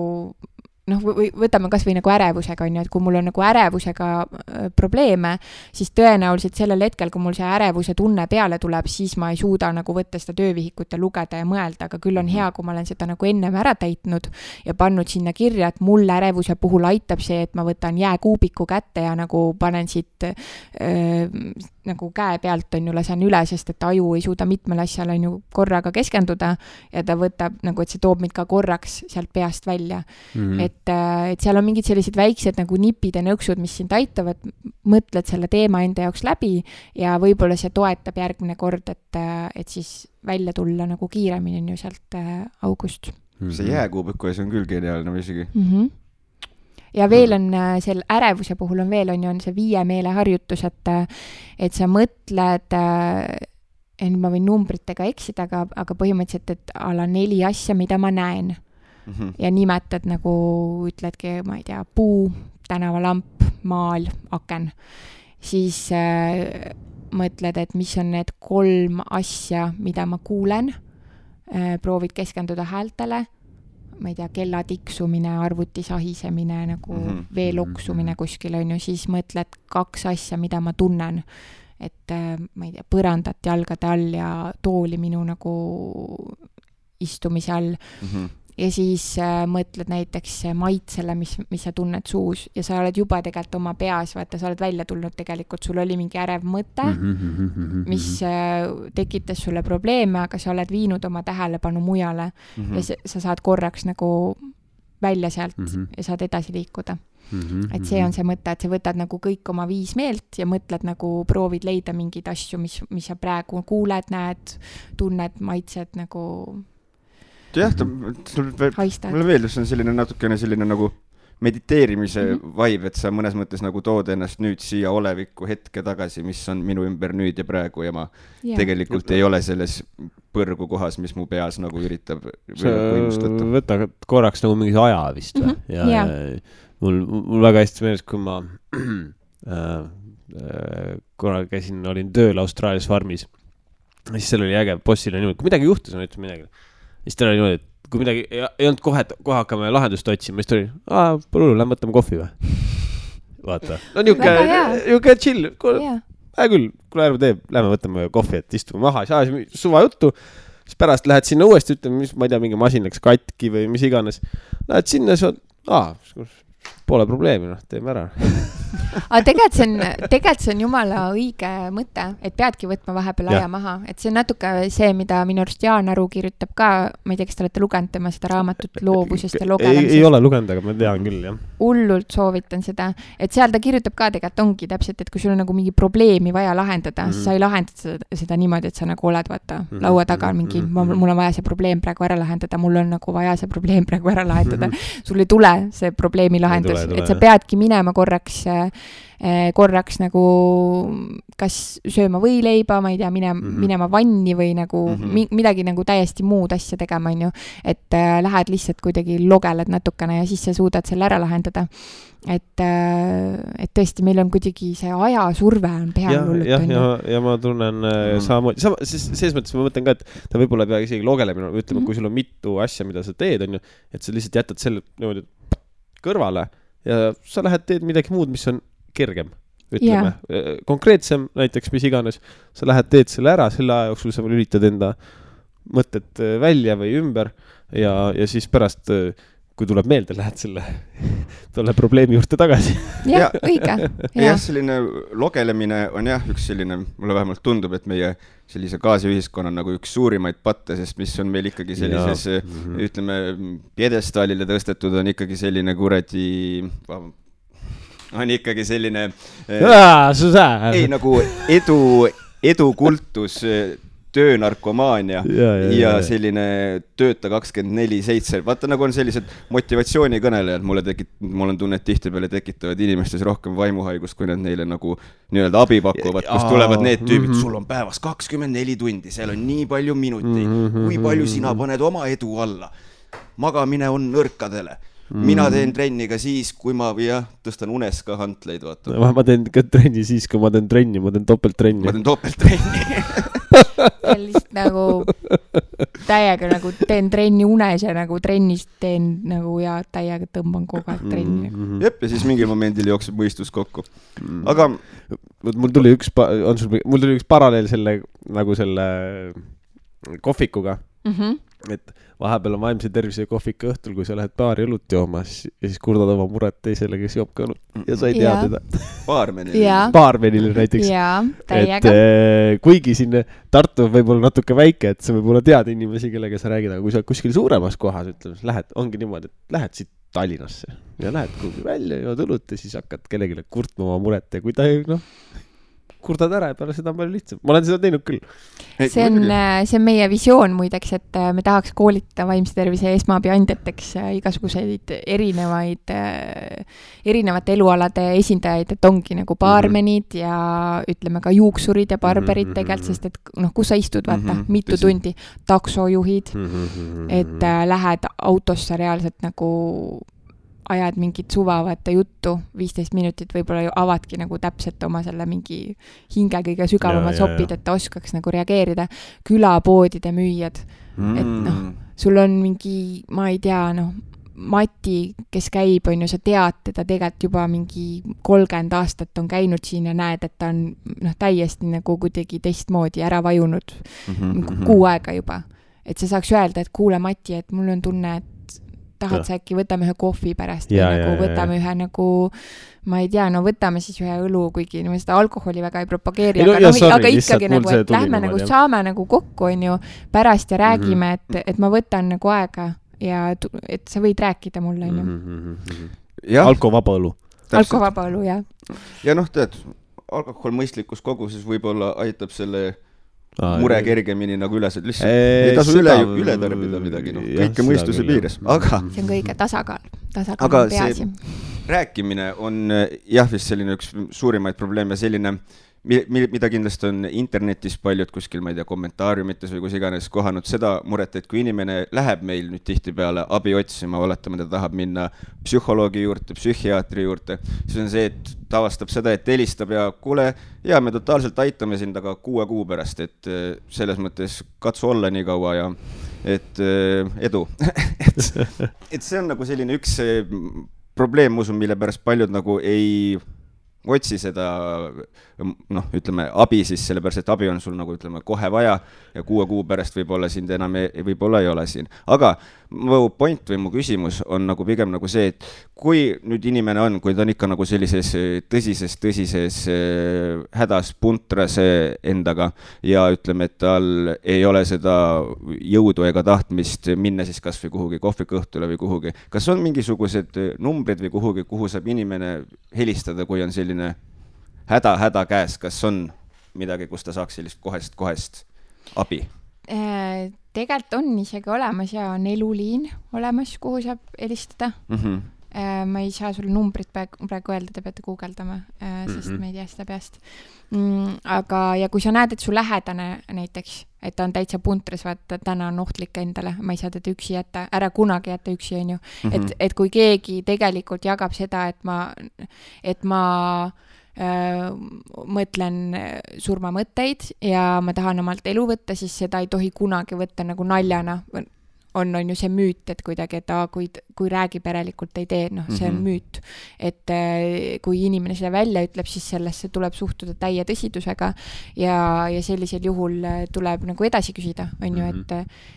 võtame kas või nagu ärevusega, on ju, et kui mul on nagu ärevusega probleeme, siis tõenäoliselt sellel hetkel, kui mul see ärevuse tunne peale tuleb, siis ma ei suuda nagu võtta seda töövihikut ja lugeda ja mõelda, aga küll on hea, kui ma olen seda nagu ennem ära täitnud ja pannud sinna kirja, et mul ärevuse puhul aitab see, et ma võtan jääkuubiku kätte ja nagu panen siit nagu käe pealt on ju lasen üle, sest et aju ei suuda mitmel asjal on ju korraga keskenduda ja ta võtab nagu, et see toob mind ka korraks sealt peast välja. Et seal on mingid sellised väiksed nagu nipid ja nõksud, mis sind aitavad, mõtled selle teema enda jaoks läbi ja võib-olla see toetab järgmine kord, et siis välja tulla nagu kiiremini on ju sealt august. See jääkuubiku ees on küll geniaalne isegi. Ja veel on selle ärevuse puhul on veel on see 5 meeleharjutus, et sa mõtled, ma võin numbritega eksida, aga põhimõtteliselt, et ala 4 asja, mida ma näen. Ja nimetad nagu, ütledki, ma ei tea, puu, tänavalamp, maal, aken. Siis mõtled, et mis on need 3 asja, mida ma kuulen. Proovid keskenduda häältele. Ma ei tea, kella tiksumine, arvuti sahisemine, nagu vee loksumine kuskil on ju, siis mõtled 2 asja, mida ma tunnen, et ma ei tea, põrandat jalgade all ja tooli minu nagu istumise all. Ja siis mõtled näiteks maitsele, mis sa tunned suus ja sa oled juba tegelikult oma peas, vaata, sa oled välja tulnud tegelikult, sul oli mingi ärev mõte, mis tekitas sulle probleeme, aga sa oled viinud oma tähelepanu mujale ja sa saad korraks nagu välja sealt ja saad edasi liikuda. Et see on see mõte, et sa võtad nagu kõik oma 5 meelt ja mõtled nagu, proovid leida mingeid asju, mis sa praegu kuuled, näed, tunned, maitsed nagu jah, mulle meeldib, see on selline natukene selline nagu mediteerimise vibe, et sa mõnes mõttes nagu tood ennast nüüd siia oleviku hetke tagasi, mis on minu ümber nüüd ja praegu ja ma tegelikult ei ole selles põrgu kohas, mis mu peas nagu üritab võimustada. Võta korraks nagu mingi aja vist või? Ja mul väga hästi meeles, kui ma korra käisin, olin tööl Austraalias farmis, siis seal oli äge, bossil on niimoodi, kui midagi juhtus, on ütleb midagi. Siis ta oli niimoodi, et kui midagi ei olnud kohe hakkame lahendust otsima, siis ta oli, pole hullu, lähme võtame kohvi või? Vaata. No niuke chill. Küll, kui ärme teeb, lähme võtame kohvi, et istume maha, siis suva juttu. Siis pärast lähed sinna uuesti, ütleme, ma ei tea, mingi masin läks katki või mis iganes. Lähed sinna, siis pole probleemi, teeme ära. Aga tegelikult see on jumala õige mõte, et peadki võtma vahepeal aja maha, et see on natuke see, mida minu arust Jaan Aru kirjutab ka, ma ei tea, kas te olete lugenud tema seda raamatut loovusest ja logelemisest. Ei ole lugenud, aga ma tean küll, jah. Hullult soovitan seda, et seal ta kirjutab ka tegelikult ongi täpselt, et kui sul on nagu mingi probleemi vaja lahendada, siis sa ei lahendada seda niimoodi, et sa nagu oled vaata laua taga mingi, mul on vaja see probleem praegu ära lahendada, mul on nagu vaja see probleem praegu ära lahendada. Sul ei tule see probleemi lahendus, et sa peadki minema korraks nagu kas sööma võileiba, ma ei tea, minema vanni või nagu midagi nagu täiesti muud asja tegema, on ju. Et lähed lihtsalt kuidagi logeled natukene ja siis sa suudad selle ära lahendada. Et tõesti, meil on kuidagi see ajasurve on peal hullut. Ja ma tunnen samamoodi, selles mõttes ma mõtlen ka, et ta võib-olla ei pea isegi logelemine, ütleme, kui sul on mitu asja, mida sa teed, on ju, et sa lihtsalt jätad selle niimoodi kõrvale ja sa lähed teed midagi muud, mis on kergem, ütleme, konkreetsem näiteks, mis iganes, sa lähed teed selle ära, selle aja jooksul sa lülitad enda mõtted välja või ümber ja siis pärast, kui tuleb meelde, lähed selle probleemi juurde tagasi. Jah, õige. Jah, selline logelemine on üks selline, mulle vähemalt tundub, et meie sellise gaasiühiskonna nagu üks suurimaid patte, sest mis on meil ikkagi sellises, ütleme, pjedestaalile tõstetud on ikkagi selline kuradi on ikkagi selline ei nagu edukultus, töönarkomaania ja selline tööta 24/7. Vaata, nagu on sellised motivatsioonikõnelejad, mul on tunne, et tihtipeale tekitavad inimestes rohkem vaimuhaigust, kui nad neile nagu nii-öelda abi pakuvad, kus tulevad need tüübid, sul on päevas 24 tundi, seal on nii palju minuteid, kui palju sina paned oma edu alla. Magamine on nõrkadele. Mina teen trenni ka siis, kui ma tõstan unes ka hantleid, vaata. Ma teen ka trenni siis, kui ma teen trenni, ma teen topelttrenni. Ma teen topelttrenni. Lihtsalt nagu täiega nagu teen trenni unes ja nagu trennis teen nagu ja täiega tõmban kogu aeg trenni. Jep, ja siis mingil momendil jookseb mõistus kokku. Aga mul tuli üks paralleel selle kohvikuga. et vahepeal on vaimse tervise kohvika õhtul, kui sa lähed baari õlut joomas ja siis kurdad oma muret teisele, kes joob ka õlut ja sa ei tea teda. Baarmenile näiteks. Et kuigi siin Tartu võib olla natuke väike, et sa võib olla teada inimesi, kellega sa räägid, aga kui sa kuskil suuremas kohas, ütleme, lähed, ongi niimoodi, et lähed siit Tallinnasse ja lähed kuhugi välja, jood õlut ja siis hakkad kellelegi kurtma oma muret ja kui ta kurdad ära ja peale seda on palju lihtsam. Ma olen seda teinud küll. See on meie visioon muideks, et me tahaks koolitada vaimse tervise esmaabiandjateks igasuguseid erinevate elualade esindajaid, et ongi nagu baarmenid ja ütleme ka juuksurid ja barberid tegelikult, sest et kus sa istud, vaata, mitu tundi, taksojuhid, et lähed autosse reaalselt nagu ajad mingit suvavate juttu, 15 minutit võib-olla ju avadki nagu täpselt oma selle mingi hinge kõige sügavamad sopid, et ta oskaks nagu reageerida. Külapoodide müüjad, et sul on mingi, ma ei tea, Mati, kes käib, on ju, sa tead teda tegelikult juba mingi 30 aastat on käinud siin ja näed, et ta on täiesti nagu kuidagi teistmoodi ära vajunud kuu aega juba. Et sa saaks öelda, et kuule Mati, et mul on tunne, et tahad sa äkki võtame ühe kohvi pärast või nagu võtame ühe nagu, ma ei tea, võtame siis ühe õlu, kuigi seda alkoholi väga ei propageeri, aga ikkagi nagu, et lähme nagu saame nagu kokku, on ju, pärast ja räägime, et ma võtan nagu aega ja et sa võid rääkida mulle, on ju. Alkovaba õlu. Alkovaba õlu, jah. Ja tead, alkohol mõistlikus koguses võib-olla aitab selle mure kergemini nagu üles, et lihtsalt ei tasu üle tarbida midagi, kõike mõistuse piires, aga see on kõige tasakaal aga see rääkimine on jah, vist selline üks suurimaid probleeme, selline, mida kindlasti on internetis paljud kuskil, ma ei tea, kommentaariumites või kus iganes kohanud seda muret, et kui inimene läheb meil nüüd tihtipeale abi otsima, oletame, ta tahab minna psühholoogi juurde, psühhiaatri juurde, siis on see, et ta avastab seda, et helistab ja kuule, ja me totaalselt aitame sind, aga 6 kuu pärast, et selles mõttes katsu olla nii kaua ja et edu. et see on nagu selline üks probleem, usun, mille pärast paljud nagu ei otsi seda, ütleme, abi siis, sellepärast, et abi on sul nagu, ütleme, kohe vaja ja 6 kuu pärast võib-olla sind enam võib-olla ei ole siin. Aga mu point või mu küsimus on nagu pigem nagu see, et kui nüüd inimene on, kui ta on ikka nagu sellises tõsises hädas puntras endaga ja ütleme, et tal ei ole seda jõudu ega tahtmist minna siis kas või kuhugi kohvikõhtule või kuhugi. Kas on mingisugused numbrid või kuhugi, kuhu saab inimene helistada, kui on selline häda käes, kas on midagi, kus ta saaks sellist kohest abi? Tegelikult on isegi olemas ja on eluliin olemas, kuhu saab helistada. Ma ei saa sulle numbrit praegu öelda, te peate guugeldama, sest me ei tea seda peast. Aga ja kui sa näed, et su lähedane näiteks, et ta on täitsa puntras, vaata, täna on ohtlik endale, ma ei saa teda üksi jätta, ära kunagi jätta üksi, on ju. Et kui keegi tegelikult jagab seda, et ma mõtlen surmamõtteid ja ma tahan omalt elu võtta, siis seda ei tohi kunagi võtta nagu naljana. On ju see müüt, et kuidagi, et kui räägib järelikult ei tee, see on müüt. Et kui inimene seda välja ütleb, siis sellesse tuleb suhtuda täie tõsidusega ja sellisel juhul tuleb nagu edasi küsida, on ju,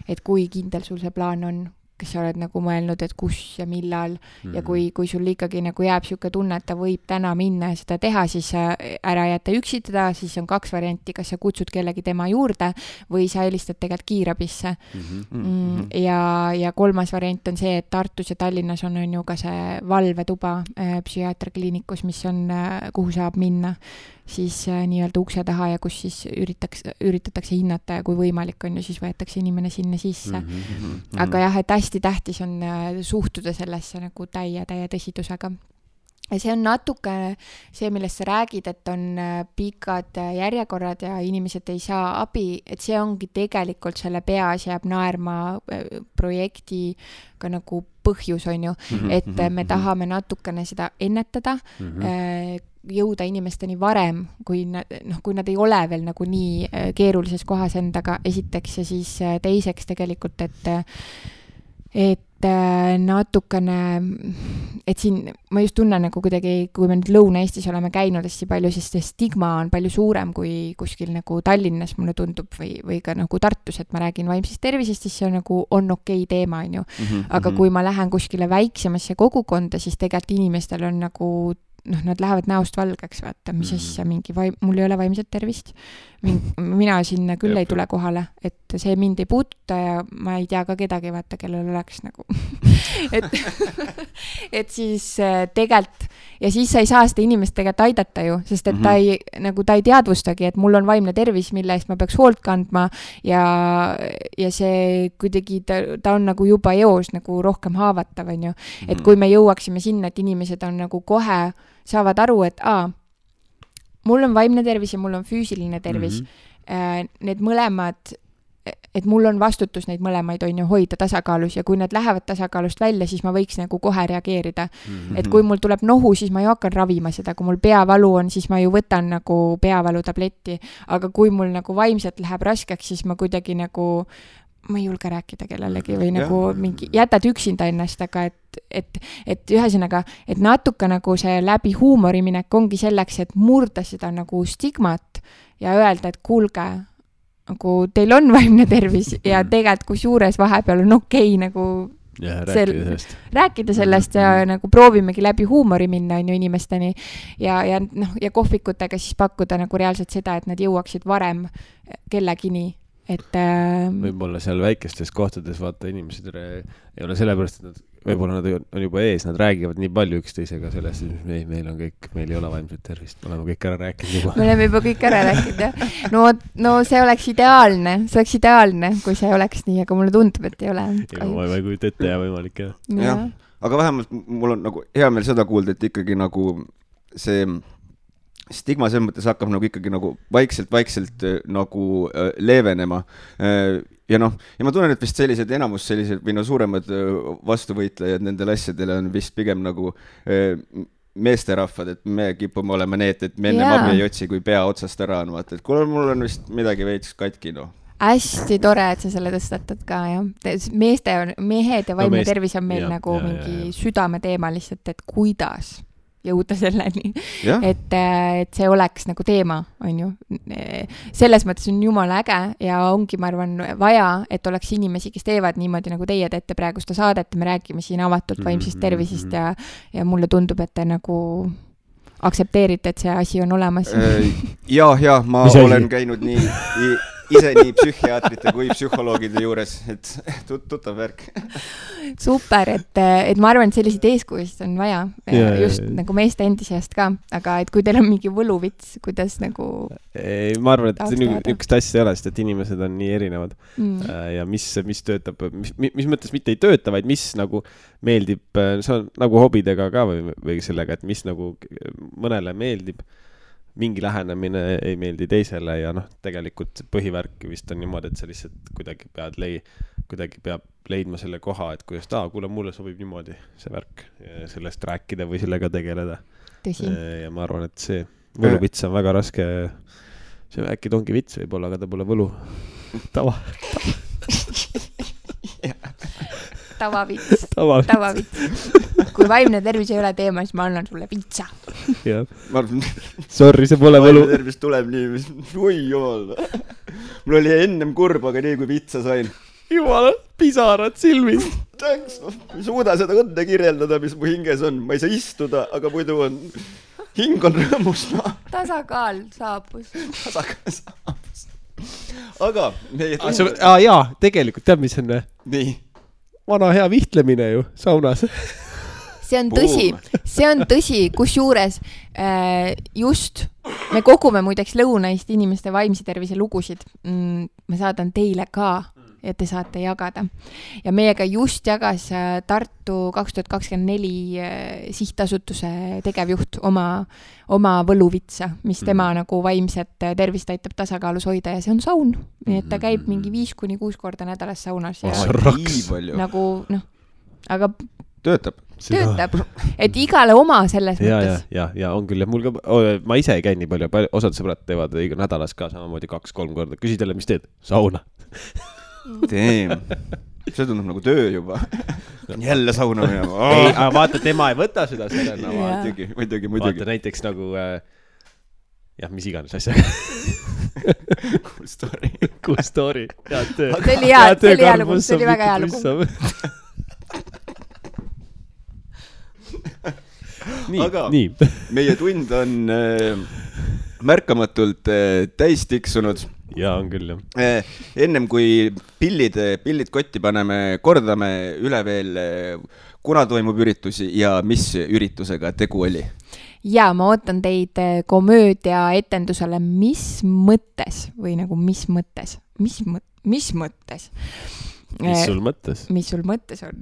et kui kindel sul see plaan on, kes sa oled nagu mõelnud, et kus ja millal ja kui sul ikkagi nagu jääb siuke tunne, et ta võib täna minna ja seda teha, siis ära jätta üksitada, siis on 2 varianti, kas sa kutsud kellegi tema juurde või sa helistad tegelikult kiirabisse. Ja 3. variant on see, et Tartus ja Tallinnas on ju ka see valvetuba psühhiaatriakliinikus, mis on, kuhu saab minna siis nii-öelda ukse taha ja kus siis üritatakse hinnata ja kui võimalik on ju, siis võetakse inimene sinna sisse. Aga jah, et hästi tähtis on suhtuda sellesse nagu täie tõsidusega. Ja see on natuke see, millest sa räägid, et on pikad järjekorrad ja inimesed ei saa abi, et see ongi tegelikult selle peas jääb naerma projekti ka nagu põhjus, on ju, et me tahame natukene seda ennetada, jõuda inimesteni varem, kui nad ei ole veel nagu nii keerulises kohas endaga esiteks ja siis teiseks tegelikult, et natukene et siin ma just tunnen nagu kuidagi, kui me nüüd Lõuna-Eestis oleme käinud hästi palju, siis see stigma on palju suurem kui kuskil nagu Tallinnas mulle tundub või ka nagu Tartus, et ma räägin vaimsest tervisest, siis see on nagu on okei teema, on ju. Aga kui ma lähen kuskile väiksemasse kogukonda, siis tegelikult inimestel on nagu nad lähevad näost valgeks, vaata, mis asja mingi mul ei ole vaimset tervist. Mina sinna küll ei tule kohale, et see mind ei puuduta ja ma ei tea ka kedagi, vaata, kellel oleks nagu et siis tegelikult ja siis sa ei saa seda inimest tegelikult aidata ju, sest et ta ei teadvustagi, et mul on vaimne tervis, mille eest ma peaks hoolt kandma ja see kuidagi ta on nagu juba eos nagu rohkem haavatav, on ju. Et kui me jõuaksime sinna, et inimesed on nagu kohe saavad aru, et mul on vaimne tervis ja mul on füüsiline tervis. Need mõlemad, et mul on vastutus neid mõlemaid on ju hoida tasakaalus ja kui need lähevad tasakaalust välja, siis ma võiks nagu kohe reageerida. Et kui mul tuleb nohu, siis ma ju hakkan ravima seda, kui mul peavalu on, siis ma ju võtan nagu peavalu tabletti, aga kui mul nagu vaimselt läheb raskeks, siis ma kuidagi nagu ma ei julge rääkida kellelegi või nagu mingi, jätad üksinda ennast, aga et ühesõnaga, et natuke nagu see läbi huumori minek ongi selleks, et murda seda nagu stigmat ja öelda, et kuulge, nagu teil on vaimne tervis ja tegelikult kusjuures vahepeal on okei nagu rääkida sellest ja nagu proovimegi läbi huumori minna on ju inimesteni ja kohvikutega siis pakkuda nagu reaalselt seda, et nad jõuaksid varem kellegini. Võib-olla seal väikestes kohtades vaata inimesed ei ole sellepärast, et võib-olla nad on juba ees, nad räägivad nii palju üksteisega sellest, et meil on kõik, meil ei ole vaimset tervist, me oleme kõik ära rääkinud juba. Me oleme juba kõik ära rääkinud, jah. No see oleks ideaalne, kui see oleks nii, aga mulle tundub, et ei ole. Ma ei kujuta ette ja võimalik, jah. Jah, aga vähemalt mul on nagu hea meel seda kuulda, et ikkagi nagu see stigma selles mõttes hakkab nagu ikkagi nagu vaikselt nagu leevenema. Ja ma tunnen, et vist enamus sellised või suuremad vastuvõitlejad nendele asjadele on vist pigem nagu meesterahvad, et me kipume olema need, et me enne abi ei otsi, kui pea otsast ära on, vaata, et kuule, mul on vist midagi veits katki, Hästi tore, et sa selle tõstatad ka, jah. Mehed ja vaimne tervis on meil nagu mingi südame teema lihtsalt, et kuidas jõuda selleni, et see oleks nagu teema, on ju. Selles mõttes on jumala äge ja ongi, ma arvan, vaja, et oleks inimesi, kes teevad niimoodi, nagu teie teete praegu seda saadet, me räägime siin avatult vaimsest tervisest ja mulle tundub, et te nagu aktsepteerite, et see asi on olemas. Ja, ma olen käinud ise nii psühhiaatrite kui psühholoogide juures, et tuttav värk. Super, et ma arvan, et selliseid eeskujusid on vaja, just nagu meeste endi seast ka, aga et kui teil on mingi võluvits, kuidas nagu ma arvan, et niisugust asja ei ole, sest et inimesed on nii erinevad ja mis töötab, mis mõttes mitte ei tööta, vaid mis nagu meeldib, see on nagu hobidega ka või sellega, et mis nagu mõnele meeldib, mingi lähenemine ei meeldi teisele ja tegelikult põhivärk vist on niimoodi, et sa lihtsalt kuidagi peab leidma selle koha, et kuidas kuule, mulle sobib niimoodi see värk sellest rääkida või sellega tegeleda. Tõsi. Ja ma arvan, et see võluvits on väga raske, see äkki ongi vits võib-olla, aga ta pole võlu. Tavavits. Kui vaimne tervis ei ole teema, siis ma annan sulle vitsa. Sorry, see pole võlu. Vaimne tervis tuleb nii, oi jumal. Mul oli ennem kurb, aga nii kui vitsa sain. Jumala, pisarad silmis. Thanks, ma ei suuda seda õnne kirjeldada, mis mu hinges on. Ma ei saa istuda, aga muidu on hing on rõõmus. Tasakaal saabus. Aga jaa, tegelikult tead, mis on? Nii. Vana hea vihtlemine ju saunas. See on tõsi, kusjuures just me kogume muideks Lõuna-Eesti inimeste vaimse tervise lugusid. Ma saadan teile ka ja te saate jagada. Ja meiega just jagas Tartu 2024 sihtasutuse tegevjuht oma võluvitsa, mis tema nagu vaimset tervist aitab tasakaalus hoida ja see on saun. Nii et ta käib mingi 5-6 korda nädalas saunas. Nagu, aga töötab. Et igale oma selles mõttes. Ja on küll. Ma ise ei käi nii palju, osad sõbrad teevad nädalas ka samamoodi 2-3 korda. Küsid jälle, mis teed? Sauna. see tundub nagu töö juba. Jälle sauna minema. Ei, aga vaata, tema ei võta seda sellena. Muidugi. Vaata näiteks nagu, jah, mis iganes asjaga. Cool story. Head töö. See oli hea lugu, see oli väga hea lugu. Nii. Meie tund on märkamatult täis tiksunud. Jaa, on küll, jah. Ennem kui pillid kotti paneme, kordame üle veel, kuna toimub üritusi ja mis üritusega tegu oli. Ja ma ootan teid komöödia etendusele Mis mõttes või nagu mis mõttes? Mis mõttes? Mis sul mõttes? Mis sul mõttes on?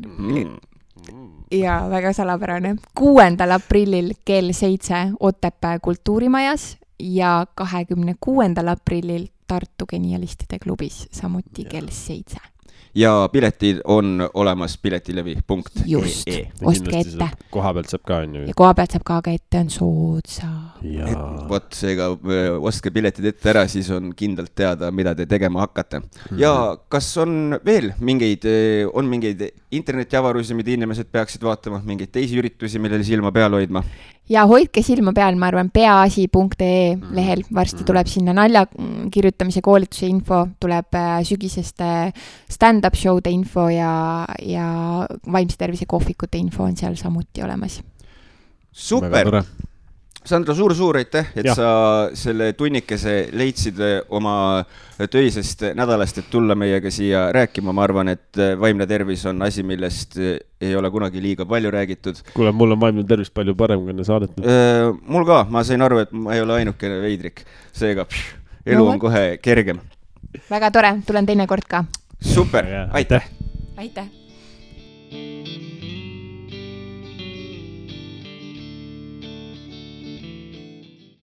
Ja väga salapärane. 6. aprillil kell 7 Otepää kultuurimajas ja 26. aprillil Tartu Genialistide klubis, samuti kell 7. Ja piletid on olemas piletilevi.ee. Just, ostke ette. Koha pealt saab ka, on ju. Ja koha pealt saab ka ette, on soodsa. Vot seega ostke piletid ette ära, siis on kindlalt teada, mida te tegema hakkate. Ja kas on veel mingeid internetiavarusi, mida inimesed peaksid vaatama, mingeid teisi üritusi, millele silma peal hoidma? Ja hoidke silma peal, ma arvan, peaasi.ee lehel. Varsti tuleb sinna nalja kirjutamise koolituse info, tuleb sügiseste stand-up show'de info ja vaimse tervise kohvikute info on seal samuti olemas. Super! Sandra, suur aitäh, et sa selle tunnikese leidsid oma töisest nädalast, et tulla meiega siia rääkima. Ma arvan, et vaimne tervis on asi, millest ei ole kunagi liiga palju räägitud. Kuule, mul on vaimne tervis palju parem, kui enne saadet. Mul ka, ma sain aru, et ma ei ole ainukene veidrik. Seega, elu on kohe kergem. Väga tore, tulen teine kord ka. Super, aitäh! Aitäh!